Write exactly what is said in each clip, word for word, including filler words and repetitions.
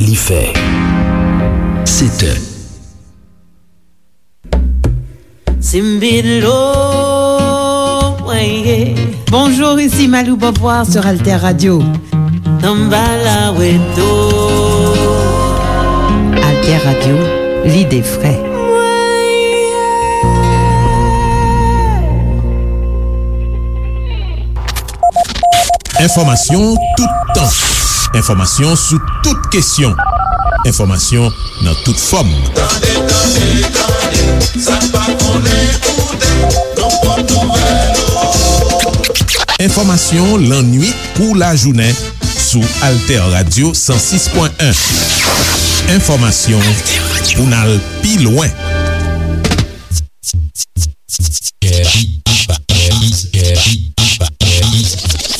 Li fè sèt è. Simbilo, mwen ye. Bonjour, ici Malou Beauvoir sur Alter Radio. Tambala weto. Alter Radio, l'idée vraie. Enfòmasyon toutan. Enfòmasyon sou tout kesyon. Enfòmasyon nan tout fòm. Tande, tande, tande, sa n pa konnen koute, nou pran nouvèl ou. Enfòmasyon lannwit kou lajounen sou Alter Radio san sis pwen en. Enfòmasyon pou n al pi lwen.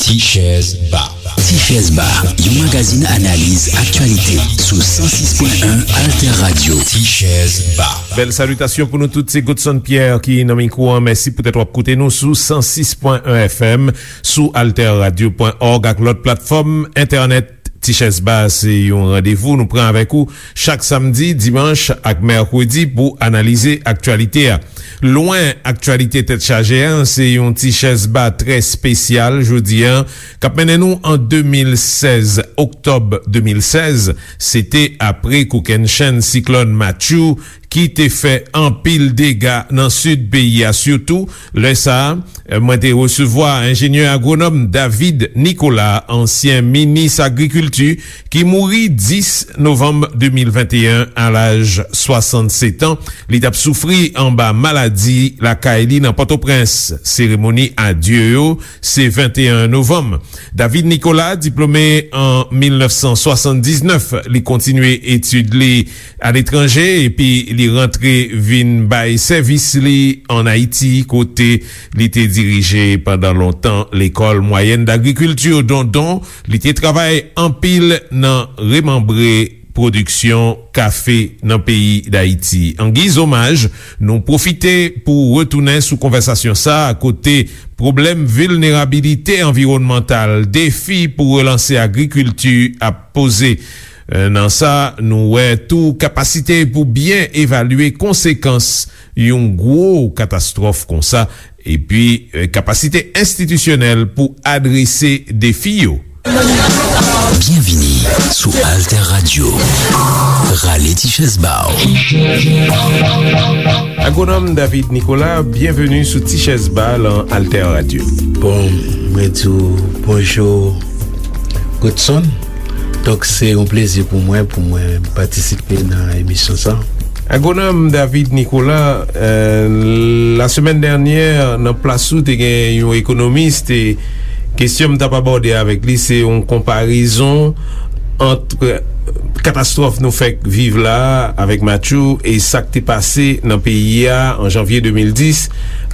Tichèz Ba. Tichèz Ba, yon magazin analiz aktyalite sou san sis pwen en Alter Radio. Tichèz Ba. Bèl salitasyon pou nou tout, se Godson Pierre ki nan mikwo an. Mèsi poutèt w ap koute nou sou san sis pwen en F M, sou alter radio pwen òg ak lòt platfòm entènèt. Tichèz Ba se yon randevou nou pran avèk ou chak samdi, dimanch ak mèkredi pou analize aktyalite a. Lwen aktyalite tèt chaje a, se yon Tichèz Ba trè espesyal jodi a, k ap mennen nou an de mil sèz, oktòb de mil sèz, se te apre kokennchenn siklòn Matthew ki te fè anpil dega nan sid peyi a, sitou lè sa a, mwen te resevwa enjenyè agwonòm David Nicolas, ansyen minis agrikilti, ki mouri dis novanm de mil venteyen a laj swasannsèt an. Li t ap soufri anba maladi lakay li nan Pòtoprens. Seremoni adye yo se venteyen novanm. David Nicolas, diplome an mil nèf san swasanndiznèf, li kontinye etid li aletranje, epi li rantre vin bay sèvis li ann Ayiti, kote li te dirije pandan lontan Lekòl Mwayèn Dagrikilti Dondon. Li te travay anpil nan remanbre pwodiksyon kafe nan peyi Dayiti. An giz omaj, nou pwofite pou retounen sou konvèsasyon sa a, kote pwoblèm vilnerabilite anviwònmantal, defi pou relanse agrikilti ap poze. Nan sa, nou wè tou kapasite pou byen evalye konsekans yon gwo katastwòf konsa, epi, eh, kapasite enstitisyonèl pou adrese defi yo. Byenvini sou Alter Radio. Rale ti chèz ba w. Agwonòm David Nicolas, byenveni sou Ti Chèz Ba lan Alter Radio. Bon, mwen di w bonjou, Godson. Donk, se yon plezi pou mwen, pou mwen patisipe nan emisyon sa. Agwonòm David Nicolas, euh, lasemèn dènyè, nan plas ou, te gen yon ekonomis, te, kesyon m t ap abòde avèk li, se yon konparezon ant katastwòf nou fèk viv la a avèk Matthew e sa k te pase nan peyi a an janvye de mil dis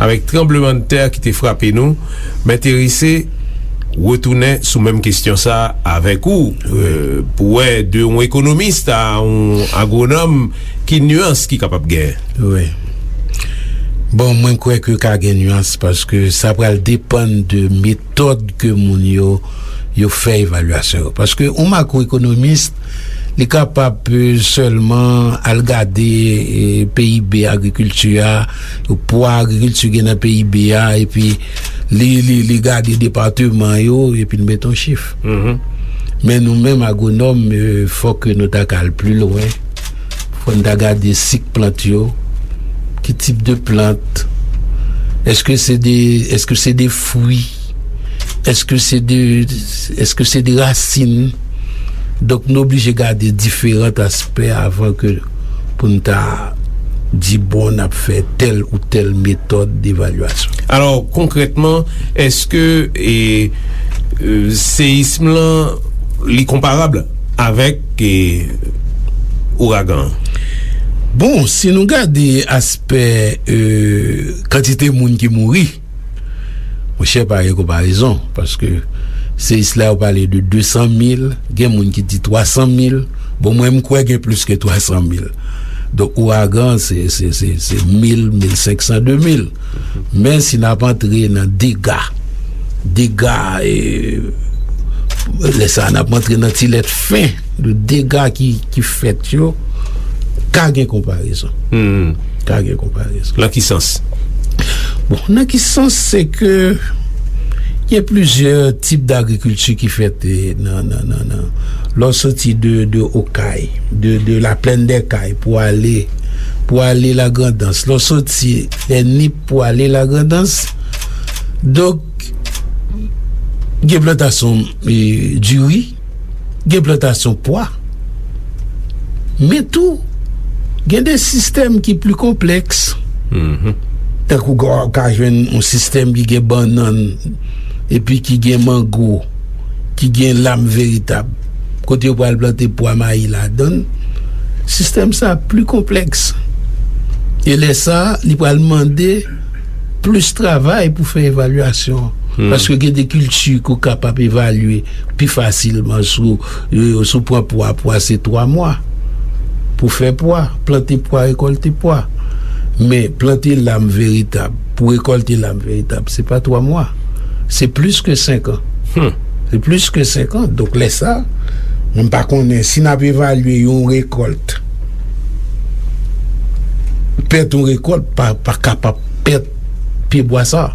avèk tranblemanntè ki te frape nou. M enterese retounen sou menm kesyon sa a avèk ou, euh, pou wè de yon ekonomis a yon agwonòm ki nyans ki kapab genyen. Wi. Bon, mwen kwè ke ka gen nyans paske sa pral depann de metòd ke moun yo, yo fè evalyasyon yo. Paske yon makwoekonomis, li kapab, euh, sèlman al gade, euh, P I B agrikilti a, pwa agrikilti gen nan P I B a, epi li, li, li gade depatman yo, epi l mete yon chif. Men nou menm agwonòm, euh, fòk nou ta ka al pi lwen. Fò n ta gade sik plant yo. Ki tip de plant? Èske se de, èske se de fwi? Èske se de, èske se de rasin? Donk, nou oblije gade diferan aspè avan ke pou n ta di, bon, n ap fè tèl ou tèl metòd devalyasyon. Alò, konkrètman, èske, e, e, seyism lan, li konparab avèk, e, ouragan an? Bon, si nou gade aspè, e, kantite moun ki mouri, monchè, pa gen konparezon, paske seyis la, yo pale de de san mil, gen moun ki di twa san mil. Bon, mwen, m kwè gen plis ke twa san mil. Donk, ouragan, se, se, se, se mil, mil senk san, de mil. Men si n ap antre nan dega, dega, e, lè sa a, n ap antre nan ti lèt fen. de dega ki, ki fèt yo, ka gen konparezon. Hmm. Ka gen konparezon. Nan ki sans? Bon, nan ki sans, se ke gen plizyè tip dagrikilti ki fèt, eh, nan, nan, nan, nan. Lè w soti de, de Okay, de, de la plaine des Cayes pou ale, pou ale Lagrandans. Lè w soti lè Nip pou ale Lagrandans. Donk, gen plantasyon, eh, diri, gen plantasyon pwa, men tou, gen de sistèm ki pli konplèks. Mhm. Tankou w ka jwenn yon sistèm ki gen bannann, epi ki gen mango, ki gen lam veritab, kote yo pral plante pwa mayi ladan l. Sistèm sa pli konplèks. E lè sa, li pral mande plis travay pou fè evalyasyon. Hmm. Paske gen de kilti ke w kapab evalye pi fasilman sou, euh, sou pran pwa, pwa se twa mwa. Pou fè pwa, plante pwa, rekòlte pwa. Men plante lam veritab, pou rekòlte lam veritab, se pa twa mwa. Se plis ke senk an. Hmm. Se plis ke senk an. Donk, lè sa, mwen pa konnen si n ap evalye yon rekòlt, pèt yon rekòlt pa, pa kapab pèt pyebwa sa.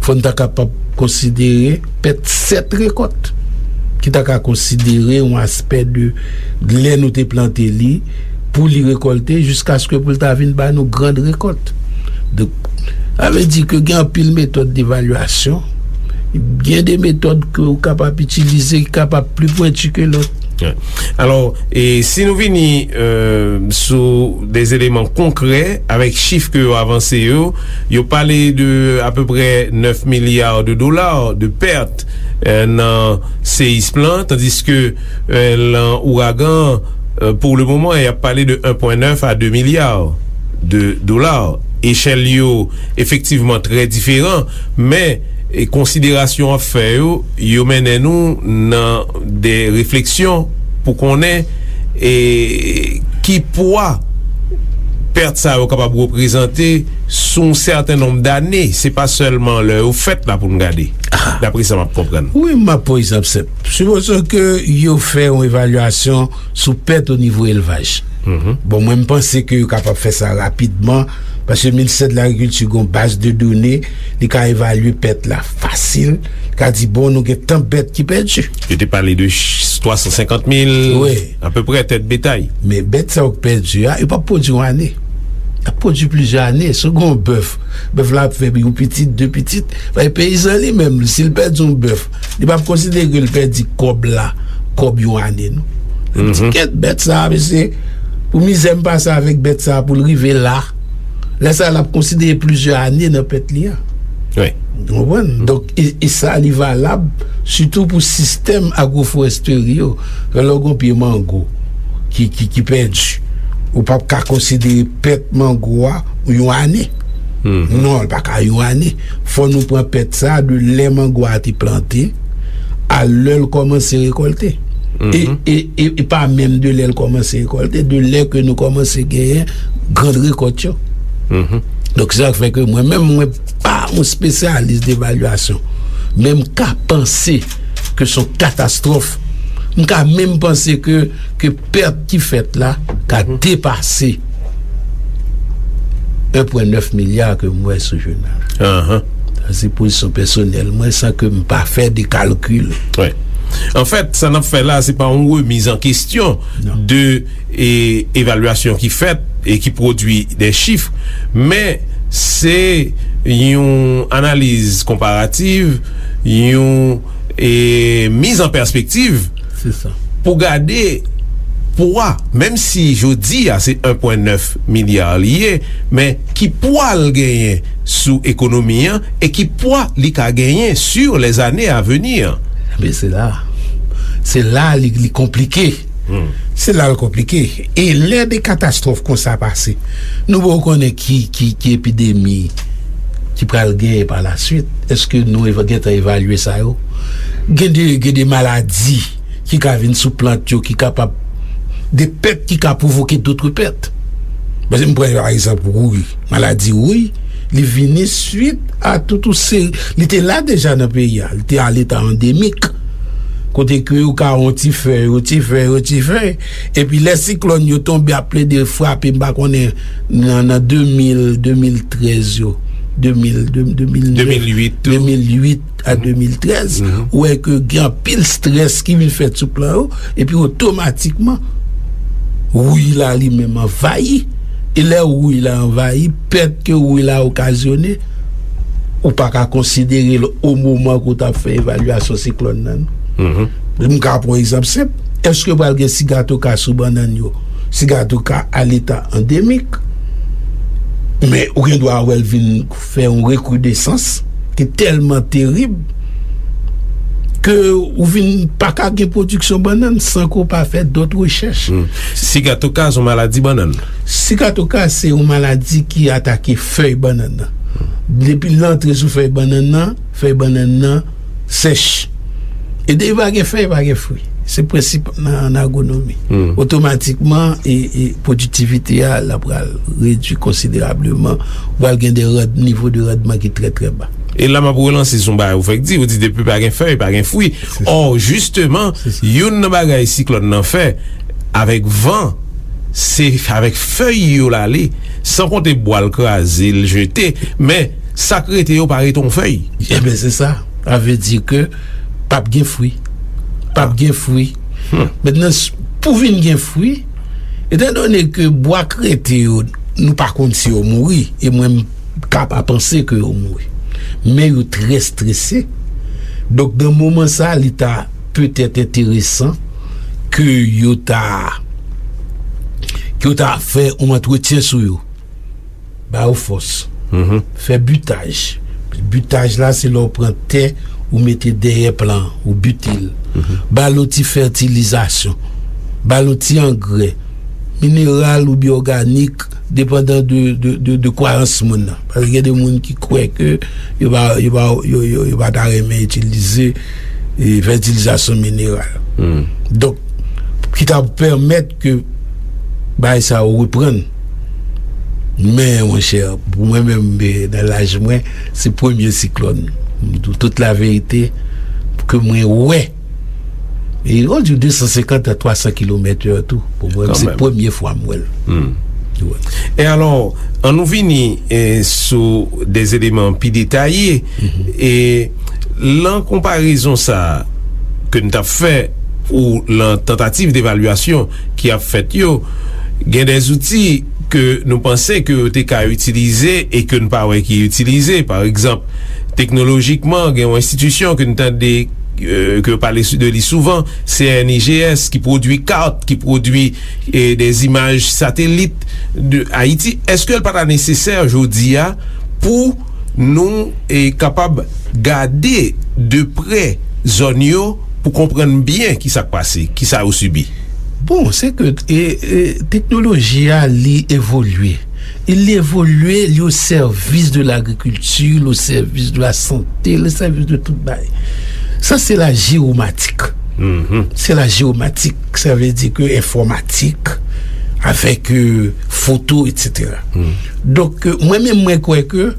Fò n ta kapab konsidere pèt sèt rekòt, ki ta ka konsidere yon aspè de lè nou te plante li, pou li rekòlte, jiskaske pou l ta vin ba nou grand rekòt. Donk, sa vle di ke gen anpil metòd devalyasyon, gen de metòd ke w kapab itilize ki kapab pli pwenti ke lòt. Alò, e si nou vini, euh, sou de eleman konkrè avèk chif ke yo avanse yo, yo pale de apeprè nèf milya de dola de pèt, euh, nan seyism lan, tandiske, euh, lan ouragan, euh, pou le moman, y ap pale de en pwen nèf a de milya de dola. Echèl yo efektivman trè diferan, men, e, konsiderasyon w ap fè yo, yo mennen nou nan de refleksyon pou konnen, e, ki pwa pèt sa yo kapab reprezante sou yon sèten nonb dane. Se pa sèlman lè yo fèt la pou n gade, dapre sa m ap konprann. Wi, m ap pran egzanp senp. Sipoze ke yo fè yon evalyasyon sou pèt o nivo elvaj. Mhm. Bon, mwen, m panse ke yo kapab fè sa rapidman, paske ministè de lagrikilti gon baz de done, li ka evalye pèt la fasil, li ka di, bon, nou gen tan bèt ki pèdi. Yo te pale de ch-, twa san senkant mil, wi, apeprè tèt betay. Men bèt sa yo k pèdi a, yo p ap pwodui yon ane. Y ap pwodui plizyè ane. Si w gen yon bèf, bèf la ap fè yon pitit, de pitit. Paske peyizan li menm, si l pèdi yon bèf, li p ap konsidere ke l pèdi kòb la, kòb yon ane, non. Li di, mhm, kèt bèt sa a, mesye, pou mizè m pase avèk bèt sa a pou l rive la. Lè sa a, l ap konsidere plizyè ane nan pèt li a. Wi. Ou konprann? Donk, e, e sa, li valab sitou pou sistèm agwoforestri yo. Lè w gen yon pye mango ki, ki, ki pèdi, ou p ap ka konsidere pèt mango a yon ane. Mhm. Non, li pa ka yon ane. Fò nou pran pèt sa a de lè mango a te plante a lè l kòmanse rekòlte. E, mhm, e, e, e pa menm de lè l kòmanse rekòlte, de lè ke nou kòmanse genyen grand rekòt yo. Mhm. Donk, se sa k fè ke mwen menm, mwen pa yon espesyalis devalyasyon, men m ka panse ke se yon katastwòf. M ka menm panse ke, ke pèt ki fèt la ka, mhm, depase en pwen nèf milya ke m wè sou jounal. Ahan. Sa se pozisyon pèsonèl mwen, san ke m pa fè de kalkil. Wi. Anfèt, sa n ap fè la, se pa yon remiz an kesyon, non, de, e, evalyasyon ki fèt e ki pwodui de chif, men se yon analiz konparativ, yon, e, miz an pèspektiv, se sa, pou gade pwa, menm si jodi a se en pwen nèf milya li ye, men ki pwa l genyen sou ekonomi an e ki pwa li ka genyen sur les années à venir. Men se la, se la li, li konplike. Hmm. Se la l konplike. E lè de katastwòf konsa pase, nou poko konnen ki, ki, ki epidemi ki pral genyen pa la swit. Èske nou eva-, gentan evalye sa yo? Gen de, gen de maladi ki ka vin sou plant yo, ki kapab, de pèt ki ka pwovoke dòt pèt. Paske m pran pa egzanp wouy, maladi wouy, li vini swit a tout yon seri, li te la deja nan peyi a, li te a leta andemik. kote ke yo ka yon ti fèy, yon ti fèy, yon ti fèy, epi lè siklòn yo tonbe ap plede frape, m pa konnen, nan, nan de mil, de mil trèz yo, de mil, de, de mil nèf, de mil uit tou. De mil uit a de mil trèz, ou wè ke gen anpil strès ki vin fèt sou plan yo, epi otomatikman, wouy la li menm anvayi. E lè wouy la anvayi, pèt ke wouy la okazyone, ou pa ka konsidere l o moman ke w t ap fè evalyasyon siklòn nan, non. M ka pran yon egzanp senp. Èske pral gen sigatoka sou bannann yo? Sigatoka a leta andemik. Men ou gen dwa wè l vin fè yon rekridesans ki tèlman terib ke ou vin pa ka gen pwodiksyon bannann san ke w pa fè dòt rechèch. Sigatoka se yon maladi bannann. Sigatoka se yon maladi ki atake fèy bannann nan. Depi l antre sou fèy bannann nan, fèy bannann nan sèch. E depi pa gen fèy, pa gen fwi. Se prensip nan, nan agwonomi. Otomatikman, e, e pwodiktivite a, l ap pral redui konsiderableman. Ou pral gen de rand-, nivo de randman ki trè, trè ba. E la, m ap relanse sou yon bagay ou fèk di, ou di depi pa gen fèy, pa gen fwi. Ò, jisteman, youn nan bagay siklòn nan fè, avèk van, se avèk fèy yo l ale, san konte bwa l kraze, l jete, men sa k rete yo pa rete yon fèy. Ebyen, se sa. Sa vle di ke p ap gen fwi. P ap gen fwi. Mentnan, s-, pou vin gen fwi, etandone ke bwa k rete yo, nou pa konn si yo mouri, e mwen, m ka pa panse ke yo mouri. Men yo trè strese. Donk, nan moman sa, li ta petèt enteresan ke yo ta, ke yo ta fè yon antretyen sou yo. Ba yo fòs. Fè bitaj. Bitaj la, se lè w pran tè, ou mete dèyè plan, ou bite l. Ba l yon ti fètilizasyon. Ba l yon ti angrè. Mineral oubyen òganik, depandan de, de, de, de kwayans moun nan. Paske gen de moun ki kwè ke yo pa, yo pa, yo, yo, yo pa ta renmen itilize, e, fètilizasyon mineral. Donk, ki ta pèmèt ke bagay sa yo reprann. Men, monchè, pou mwen menm, e, nan laj mwen, se premye siklòn. M di w tout laverite, ke mwen wè. E yo di de san senkant a twa san kilomèt è tou. Pou mwen, se premye fwa m wè l. Wi. E alò, ann nou vini, e, sou de eleman pi detaye. E lan konparezon sa a ke n t ap fè, ou lan tantativ devalyasyon ki ap fèt yo, gen de zouti ke nou panse ke yo te ka itilize e ke n pa wè ki itilize. Pa egzanp, teknolojikman, gen yon enstitisyon ke n tande, e, ke yo pale sou, de li souvan, C N I G S, ki pwodui kat, ki pwodui, e, de imaj satelit de Ayiti. Èske l pa ta nesesè jodi a pou nou, e, kapab gade de prè zòn yo pou konprann byen ki sa k pase, ki sa yo sibi? Bon, se ke, e, e, teknoloji a, li evolye. E li evolye, li o sèvis de lagrikilti, li o sèvis de lasante, li o sèvis de tout bagay. Sa, se la jewomatik. Se la jewomatik, sa vle di ke enfòmatik, avèk, e, foto, etsetera. Donk, e, mwen menm, mwen kwè ke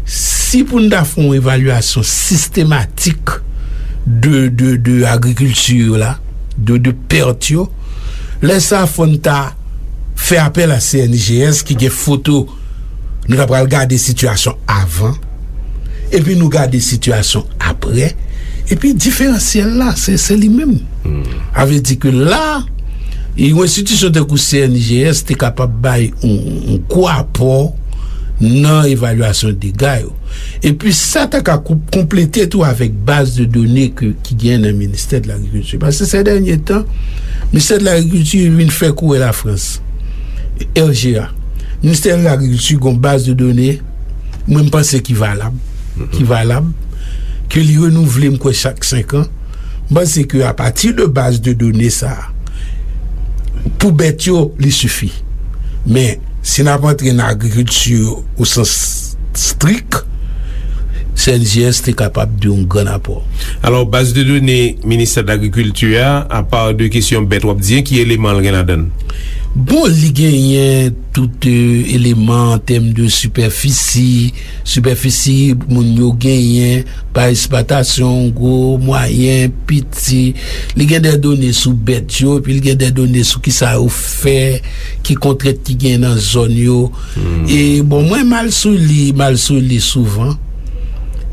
si pou n ta fè yon evalyasyon sistematik de, de, de agrikilti yo la, de, de pèt yo, lè sa a fò n ta fè apèl a C N I G S ki gen foto, nou ta pral gade sitiyasyon avan, epi nou gade sitiyasyon apre, epi diferansyèl la, se, se li menm. Sa vle di ke la, e yon enstitisyon tankou C N I G S te kapab bay yon, yon gwo apò nan evalyasyon dega yo. Epi sa ta ka kou-, konplete tou avèk baz de done ke, ki gen nan Ministè de Lagrikilti. Paske se dènye tan, Ministè de Lagrikilti vin fè kouri Lafrans, R G A. Ministè de Lagrikilti gen yon baz de done, mwen, m panse ki valab, ki valab, ke li renouvle, m kwè, chak senk an. M panse ke apati de baz de done sa a, pou bèt yo, li sifi. Men, si n ap antre nan agrikilti o sans strik, C N J S te kapab de yon gran apò. Alò, baz de done Ministè de Lagrikilti a, apa de kesyon bèt w ap di, ki eleman l gen ladan l? Bon, li genyen tout, e, eleman an tèm de sipèfisi, sipèfisi moun yo genyen, pa eksplwatasyon, gwo, mwayen, piti. Li gen de done sou bèt yo, epi li gen de done sou kisa yo fè, ki kontrent ki gen nan zòn yo. E bon, mwen m al sou li, m al sou li souvan.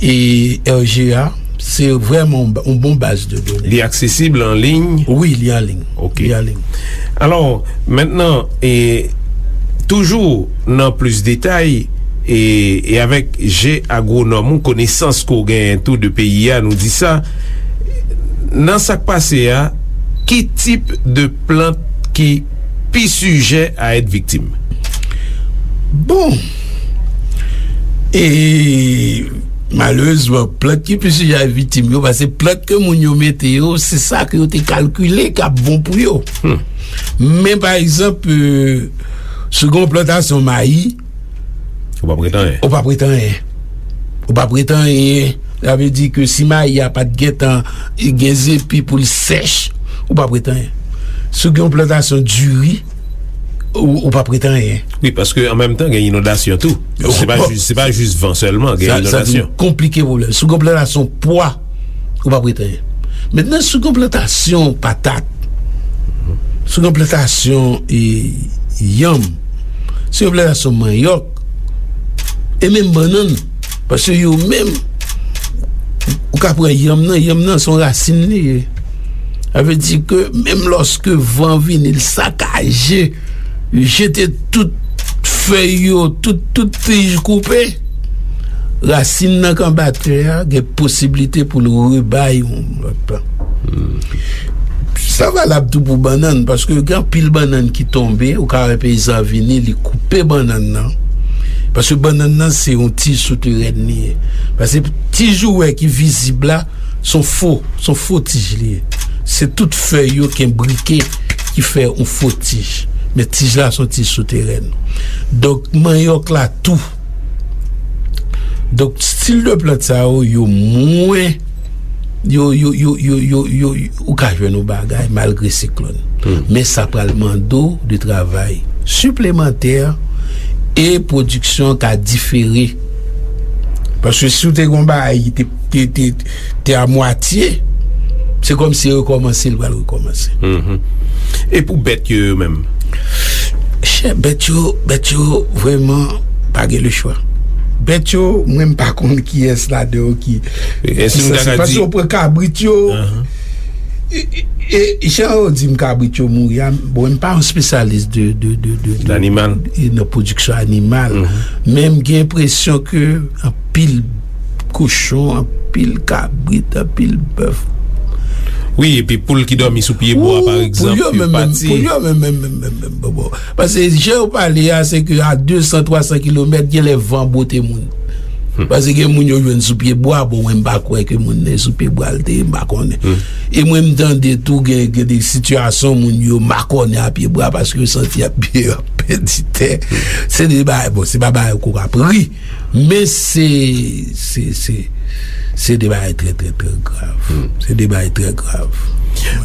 E R G A, se vrèman yon ba-, yon bon baz de done. Li aksesib an liy? Wi, li an liy. Ok. Li an liy. Alò, mentnan, e, toujou nan plis detay, e, e avèk je agwonòm ou, konesans ke w genyen tou de peyi a, nou di sa, nan sa k pase a, ki tip de plant ki pi sijè a èt viktim? Bon, e malerezman, plant ki pi sijè a viktim yo, paske plant ke moun yo mete yo, se sa ke yo te kalkile k ap bon pou yo. Hmm. Men, pa egzanp, e, si w gen yon plantasyon mayi, ou p ap ret anyen. Ou p ap ret anyen. Ou p ap ret anyen. Sa vle di ke si mayi a pa t gentan gen zepi pou l sèch, ou p ap ret anyen. Si w gen yon plantasyon diri, ou, ou p ap ret anyen. Wi, paske an menm tan, gen inondasyon tou. Se pa jis, se pa jis van sèlman, gen inondasyon. Sa vin konplike pwoblèm. Si w gen yon plantasyon pwa, ou p ap ret anyen. Mentnan, si w gen yon plantasyon patat, si w gen yon plantasyon, e, yanm, si w gen yon plantasyon manyòk, e menm bannann, paske yo menm, ou ka pran yanm nan, yanm nan se yon rasin li ye. Sa vle di ke menm lòske van vini, l sakaje, jete tout fèy yo, tout, tout tij koupe, rasin nan k anba tè a gen posiblite pou l rebay yon lòt plan. Sa valab tou pou bannann, paske gen anpil bannann ki tonbe, ou ka wè peyizan vini, li koupe bannann nan. Paske bannann nan se yon tij souterèn li ye. Paske tij ou wè ki vizib la, se yon fo, se yon fo tij li ye. Se tout fèy yo k enbrike ki fè yon fo tij. Men tij la se yon tij souterèn. Donk, manyòk la tou. Donk, stil de plant sa yo, yo mwen, yo, yo, yo, yo, yo, yo, ou ka jwenn yon bagay malgre siklòn. Hmm. Men sa pral mande w de travay siplemantè e pwodiksyon ka difere. Paske si w te gen yon bagay ki te, te, te, te a mwatye, se kòmsi rekòmanse, l pral rekòmanse. Mhm. E pou bèt yo, yo menm? Chè, bèt yo, bèt yo, vrèman, pa gen lechwa. Bèt yo, mwen, m pa konn kiyès ladan yo ki, e, ki sanse. Paske w pran kabrit yo, e, e, e, jan yo di m kabrit yo mouri a, bon, m pa yon espesyalis de, de, de, de, de, e, nan pwodiksyon animal. Mhm. Men m gen enpresyon ke anpil kochon, anpil kabrit, anpil bèf. Wi, epi poul ki dòmi sou pye bwa, pa egzanp, yo pati. Poul yo menm, menm, menm, menm, menm, bon, bon. Paske jan yo pale a, se ke a de san, twa san kilomèt, gen lè van bwote moun. Hmm. Paske gen moun yo jwenn sou pye bwa, bon, mwen, m pa kwè ke moun nan sou pye bwa l te ye, m pa konnen. Hmm. E mwen, m tande tou, gen, gen de sitiyasyon, moun yo makònen a pye bwa paske yo santi y ap, y ap pèdi tè. Hmm. Se de bagay, bon, se pa bagay kou k ap ri. Men se, se, se, se de bagay trè, trè, trè grav. Hmm. Se de bagay trè grav.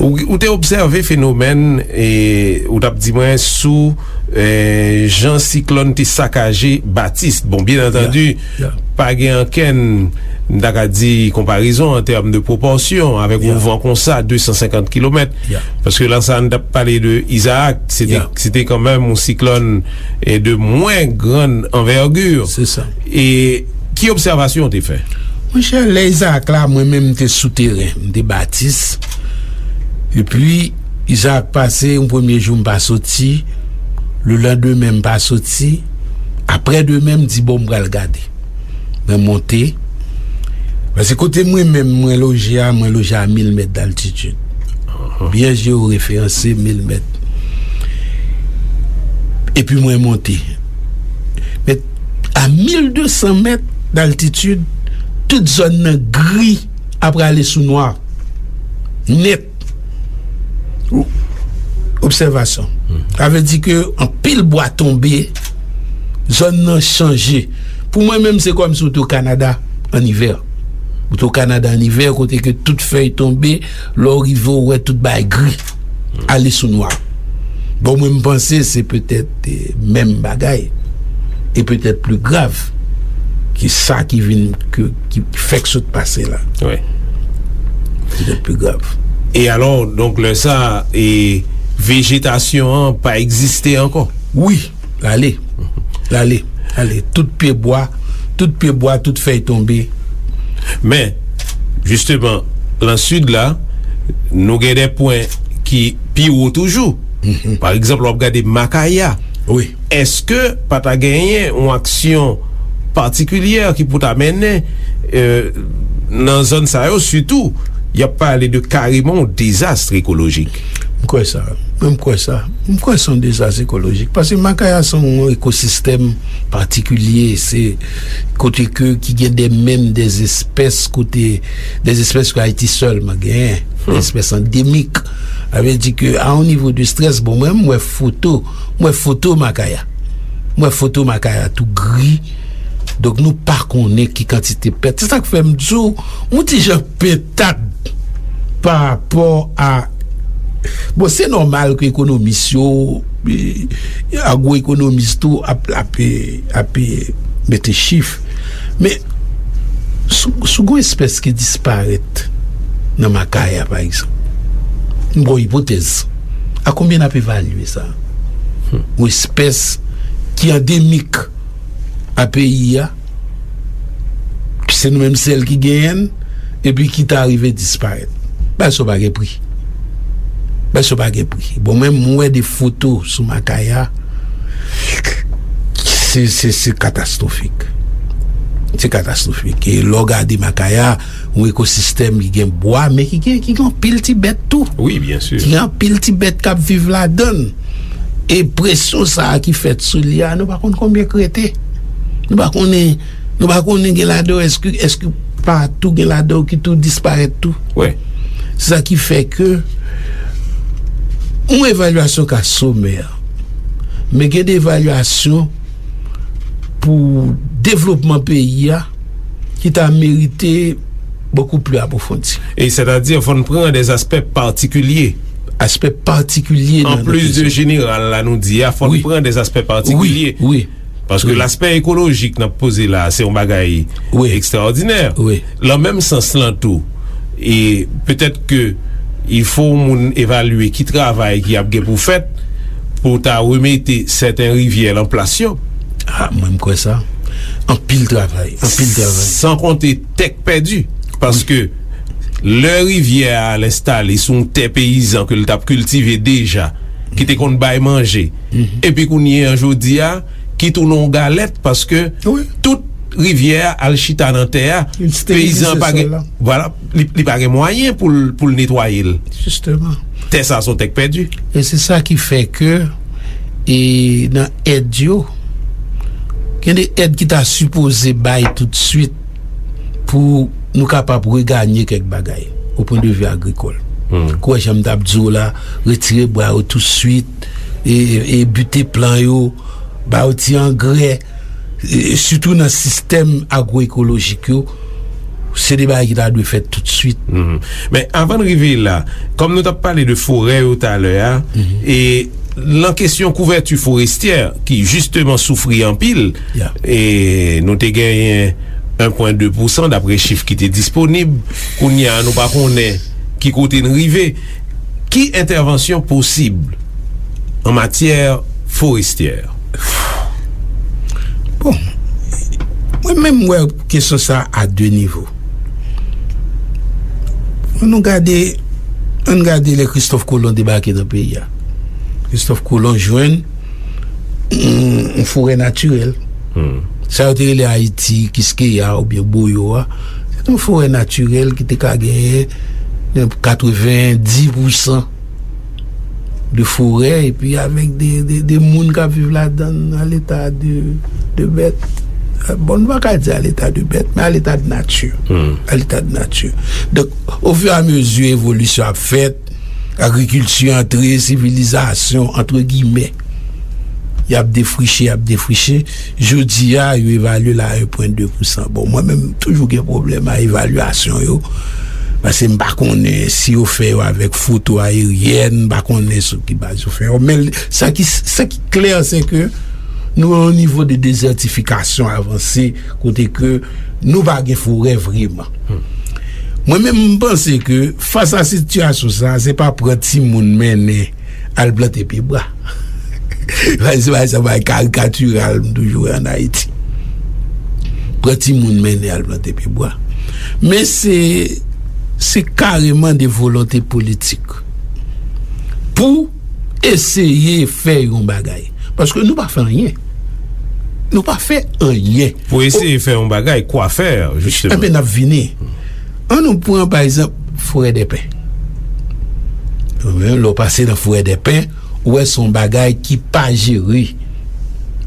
Ou, ou te obsève fenomèn, e, ou t ap di mwen sou, e, jan siklòn te sakaje Batis. Bon, byen antandi, pa gen ankenn, m ta ka di, konparezon an tèm de pwopòsyon avèk yon van konsa, de san senkant kilomèt. Paske lè sa, n t ap pale de Izaak, se te, se te kanmenm yon siklòn, e, de mwen grann anvègi. Se sa. E ki obsèvasyon w te fè? Monchè, lè Izaak la, mwen menm, m te sou teren, m te Batis. Epi, Izaak pase, yon premye jou, m pa soti. Lelandemen, m pa soti. Aprè demen, m di, bon, m pral gade. Mwen monte. Paske kote mwen menm, mwen loje a, mwen loje a mil mèt d'altitid. Byen jeoreferanse, mil mèt. Epi mwen monte. Men a mil de san mèt d'altitid, tout zòn nan gri apre ale sou nwa. Nèt. Obsèvasyon. Sa vle di ke anpil bwa tonbe, zòn nan chanje. Pou mwen menm, se kòmsi w te o Kanada an ivè. Ou te o Kanada an ivè, kote ke tout fèy tonbe, lè w rive, w wè tout bagay gri, ale sou nwa. Bon, mwen, m panse se petèt, eh, menm bagay, e petèt pli grav ke sa ki vin, ke, ki fèk sot pase la. Wi. Petèt pli grav. E alò, donk, lè sa, e vejetasyon an pa egziste ankò? Wi, l ale. L ale. Ale. Tout pye bwa, tout pye bwa, tout fèy tonbe. Men, jisteman, lan sid la, nou gen de pwen ki pi wo toujou. Mhm. Pa egzanp, w ap gade Makaya. Wi. Èske pa ta genyen yon aksyon patikilyè ki pou ta mennen, euh, nan zòn sa yo, sitou, y ap pale de kareman yon dezas ekolojik? M kwè sa. Mwen, m kwè sa. M kwè se yon dezas ekolojik. Paske Makaya se yon ekosistèm patikilye. Se kote ke, ki gen de, menm de espès kote, de espès ke Ayiti sèlman genyen. Hmm. De espès andemik. Sa vle di ke a yon nivo de strès, bon, mwen, m wè foto, m wè foto Makaya. M wè foto Makaya tou gri. Donk, nou pa konnen ki kantite pèt. Se sa k fè m di w, m yon ti jan pentad pa rapò a, bon, se nòmal ke ekonomis yo, e, agwoekonomis tou ap, ap, ap mete chif. Men, si, si w gen yon espès ki disparèt nan Makaya, pa egzanp, m ba w ipotèz, a konbyen n ap evalye sa? Hmm. Yon espès ki andemik a peyi a, se nou menm sèl ki genyen l, epi ki ta rive disparèt. Bagay sa yo pa gen pri. Bagay sa yo pa gen pri. Bon, mwen, m wè de foto sou Makaya, se, se, se katastwofik. Se katastwofik. E lè w gade Makaya, yon ekosistèm ki gen bwa, men ki gen, ki gen anpil ti bèt tou. Wi, byen si. Ki gen anpil ti bèt k ap viv ladan l. E presyon sa a ki fèt sou li a, nou pa konn konbyen k rete. Nou pa konnen, nou pa konnen gen ladan yo, èske, èske pa tou gen ladan yo ki tou disparèt tou. Wi. Se sa ki fè ke yon evalyasyon ka somè, men gen de evalyasyon pou devlopman peyi a ki ta merite bokou pli apwofondi. E sètadi, fò n pran de aspè patikilye. Aspè patikilye nan, nan kesyon. An plis de jeneral la nou di a, fò n pran de aspè patikilye. Wi, wi. Paske laspè ekolojik n ap poze la, se yon bagay ekstraòdinè. Wi. Lan menm sans lan tou, e petèt ke il fo moun evalye ki travay ki ap gen pou fèt pou ta remete sèten rivyè lan plas yo. A, mwen, m kwè sa. Anpil travay, anpil travay. San konte tè k pèdi, paske lè rivyè a al enstale sou yon tè peyizan ke l t ap kiltive deja, ki te konn bay manje, epi kounye a, jodi a, ki tounen yon galèt, paske tout rivyè a al chita nan tè a, peyizan an pa gen, vwala, li, li pa gen mwayen pou l, pou l netwaye l. Jisteman. Tè sa a se yon tè k pèdi. E se sa ki fè ke, e nan èd yo, gen de èd ki ta sipoze bay toutswit pou nou kapab reganye kèk bagay, o pwen de vi agrikòl. Hmm. Kwè jan m t ap di w la, retire bwa yo toutswit, e, e, e bute plan yo, ba yo ti angrè, e, sitou nan sistèm agwoekolojik yo, se de bagay ki ta dwe fèt toutswit. Mhm. Men avan n rive la, kòm nou t ap pale de forè yo talè a, e lan kesyon kouvèti forestyè, ki jisteman soufri anpil, e nou te genyen en pwen de pousan dapre chif ki te disponib, kounye a nou pa konnen ki kote n rive. Ki entèvansyon posib an matyè forestyè? Bon, mwen menm, m wè kesyon sa a de nivo. Ann nou gade, ann gade lè Kristòf Kolon debake nan peyi a. Kristòf Kolon jwenn yon, yon forè natirèl. Hmm. Sa yo te rele Ayiti, Kiskeya oubyen Boyo a. Se te yon forè natirèl ki te ka genyen katrevenndis pousan de forè, epi avèk de, de, de moun k ap viv ladan l, a leta de, de bèt. Bon, nou pa ka di a leta de bèt, men a leta de nati. Hmm. A leta de nati. Donk, ofiramezi evolisyon ap fèt, agrikilti antre, sivilizasyon, antre gimè, y ap defriche, y ap defriche. Jodi a, yo evalye l a en pwen de pousan. Bon, mwen menm, m toujou gen pwoblèm a evalyasyon yo. Paske m pa konnen si yo fè yo avèk foto ayeryèn, m pa konnen sou ki baz yo fè yo. Men sa ki, sa ki klè, se ke nou nan yon nivo de dezètifikasyon avanse, kote ke nou pa gen forè vreman. Mwen menm, m panse ke fas a sitiyasyon sa, se pa pran timoun mennen al plante pye bwa. Se pa, se pa karikatiral m toujou wè ann Ayiti. Pran timoun mennen al plante pye bwa. Men se, se kareman de volonte politik pou eseye fè yon bagay. Paske nou pa fè anyen. Nou pa fè anyen. Pou eseye fè yon bagay, kwa fè, jisteman? Enben, n ap vini. An nou pran, pa egzanp, Forèdèpen. Lè w pase nan Forèdèpen, ou wè se yon bagay ki pa jere.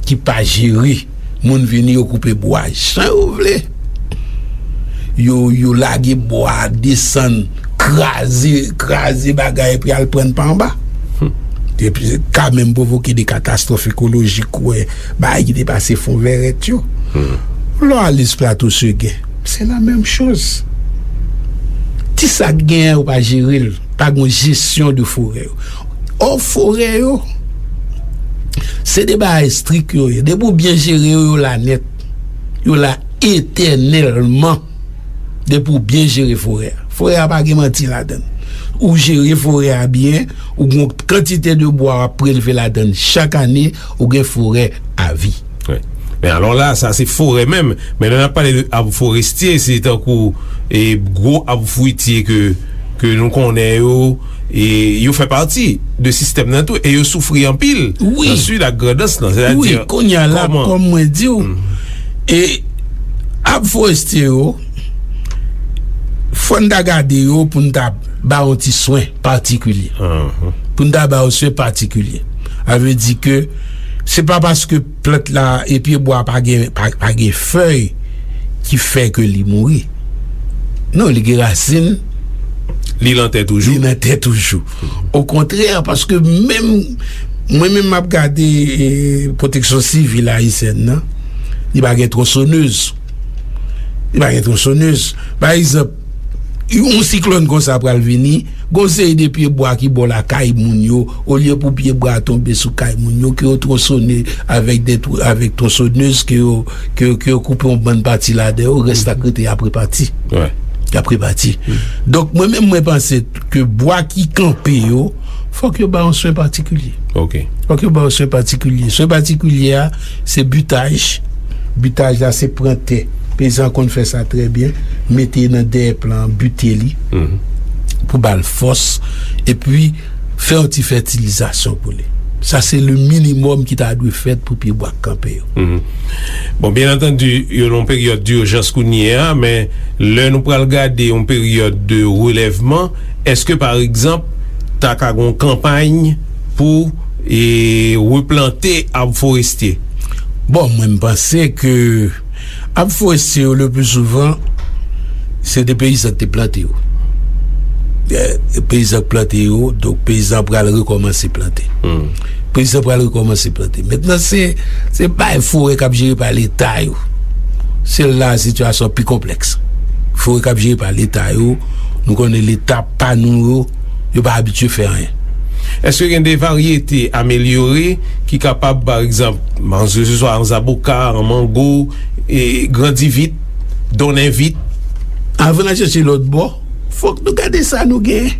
Ki pa jere. Moun vini, yo koupe bwa jan yo vle. Yo, yo lage bwa, desann, kraze, kraze bagay, epi al prann pa anba. Epi, ka menm pwovoke de katastwòf ekolojik, ou wè, bagay ki te pase fon vèrèt yo. Lè w ale sou Plato Segen, se la menm choz. Ti sa k genyen, yo pa jere l. Pa gen jesyon de forè yo. Ò, forè yo, se de bagay estrik yo ye. Depi w byen jere yo, yo la nèt. Yo la etènèlman. Depi w byen jere forè a. Forè a pa gen manti ladan l. Ou jere forè a byen, ou gen yon kantite de bwa w ap prelve ladan l chak ane, ou gen forè a vi. Wi. Men alò la, sa se forè menm. Men lè n ap pale de ab forestye, se tankou, e, gwo ab fwitye ke, ke nou konnen yo, e yo fè pati de sistèm nan tou, e yo soufri anpil nan Sid ak Grandans lan. Wi, kounye a la, kòm mwen di w, e ab forestye yo, fò n ta gade yo pou n ta ba yo ti swen patikilye. Pou n ta ba yo swen patikilye. Sa vle di ke se pa paske plant la e pye bwa pa gen, pa, pa gen fèy ki fè ke li mouri. Non, li gen rasin. Li nan tè toujou. Li nan tè toujou. Okontrè, paske menm, mwen menm m ap gade, e, pwoteksyon sivil ayisyèn nan, li pa gen twonsonèz. Li pa gen twonsonèz. Pa egzanp, yon siklòn konsa pral vini, gon seri de pye bwa ki bò lakay moun yo, olye pou pye bwa a tonbe sou kay moun yo, ke yo twonsone avèk de tw-, avèk twonsonèz, ke yo, ke, ke yo koupe yon bann pati ladan yo, rès la k rete y ap repati. Y ap repati. Donk, mwen menm, mwen panse ke bwa ki kanpe yo, fòk yo ba yon swen patikilye. Fòk yo ba yon swen patikilye. Swen patikilye a, se bitaj. Bitaj la, se pran tè. Peyizan konn fè sa trè byen. Mete nan dèyè plan an, bite li. Pou ba l fòs. Epi, fè yon ti fètilizasyon pou li. Sa, se le minimòm ki ta dwe fèt pou pye bwa k kanpe yo. Bon, byen antandi, yo nan yon peryòd dijans kounye a, men lè nou pral gade yon peryòd de relèvman, èske, pa egzanp, ta ka gon kanpay pou, e, replante ab forestye? Bon, mwen, m panse ke ab forestye yo, le pli souvan, se de peyizan ki te plante yo. E, peyizan ki plante yo, donk peyizan pral rekòmanse plante. Peyizan pral rekòmanse plante. Mentnan, se, se bay forè k ap jere pa Leta yo. Se la sitiyasyon pi konplèks. Forè k ap jere pa Leta yo, nou konnen Leta pa nou yo, yo pa abitye fè anyen. Èske gen de varyete amelyore ki kapab, pa egzanp, se swa an zaboka, an mango, e grandi vit, donnen vit? Avan n al chèche lòt bò, fòk nou gade sa nou genyen.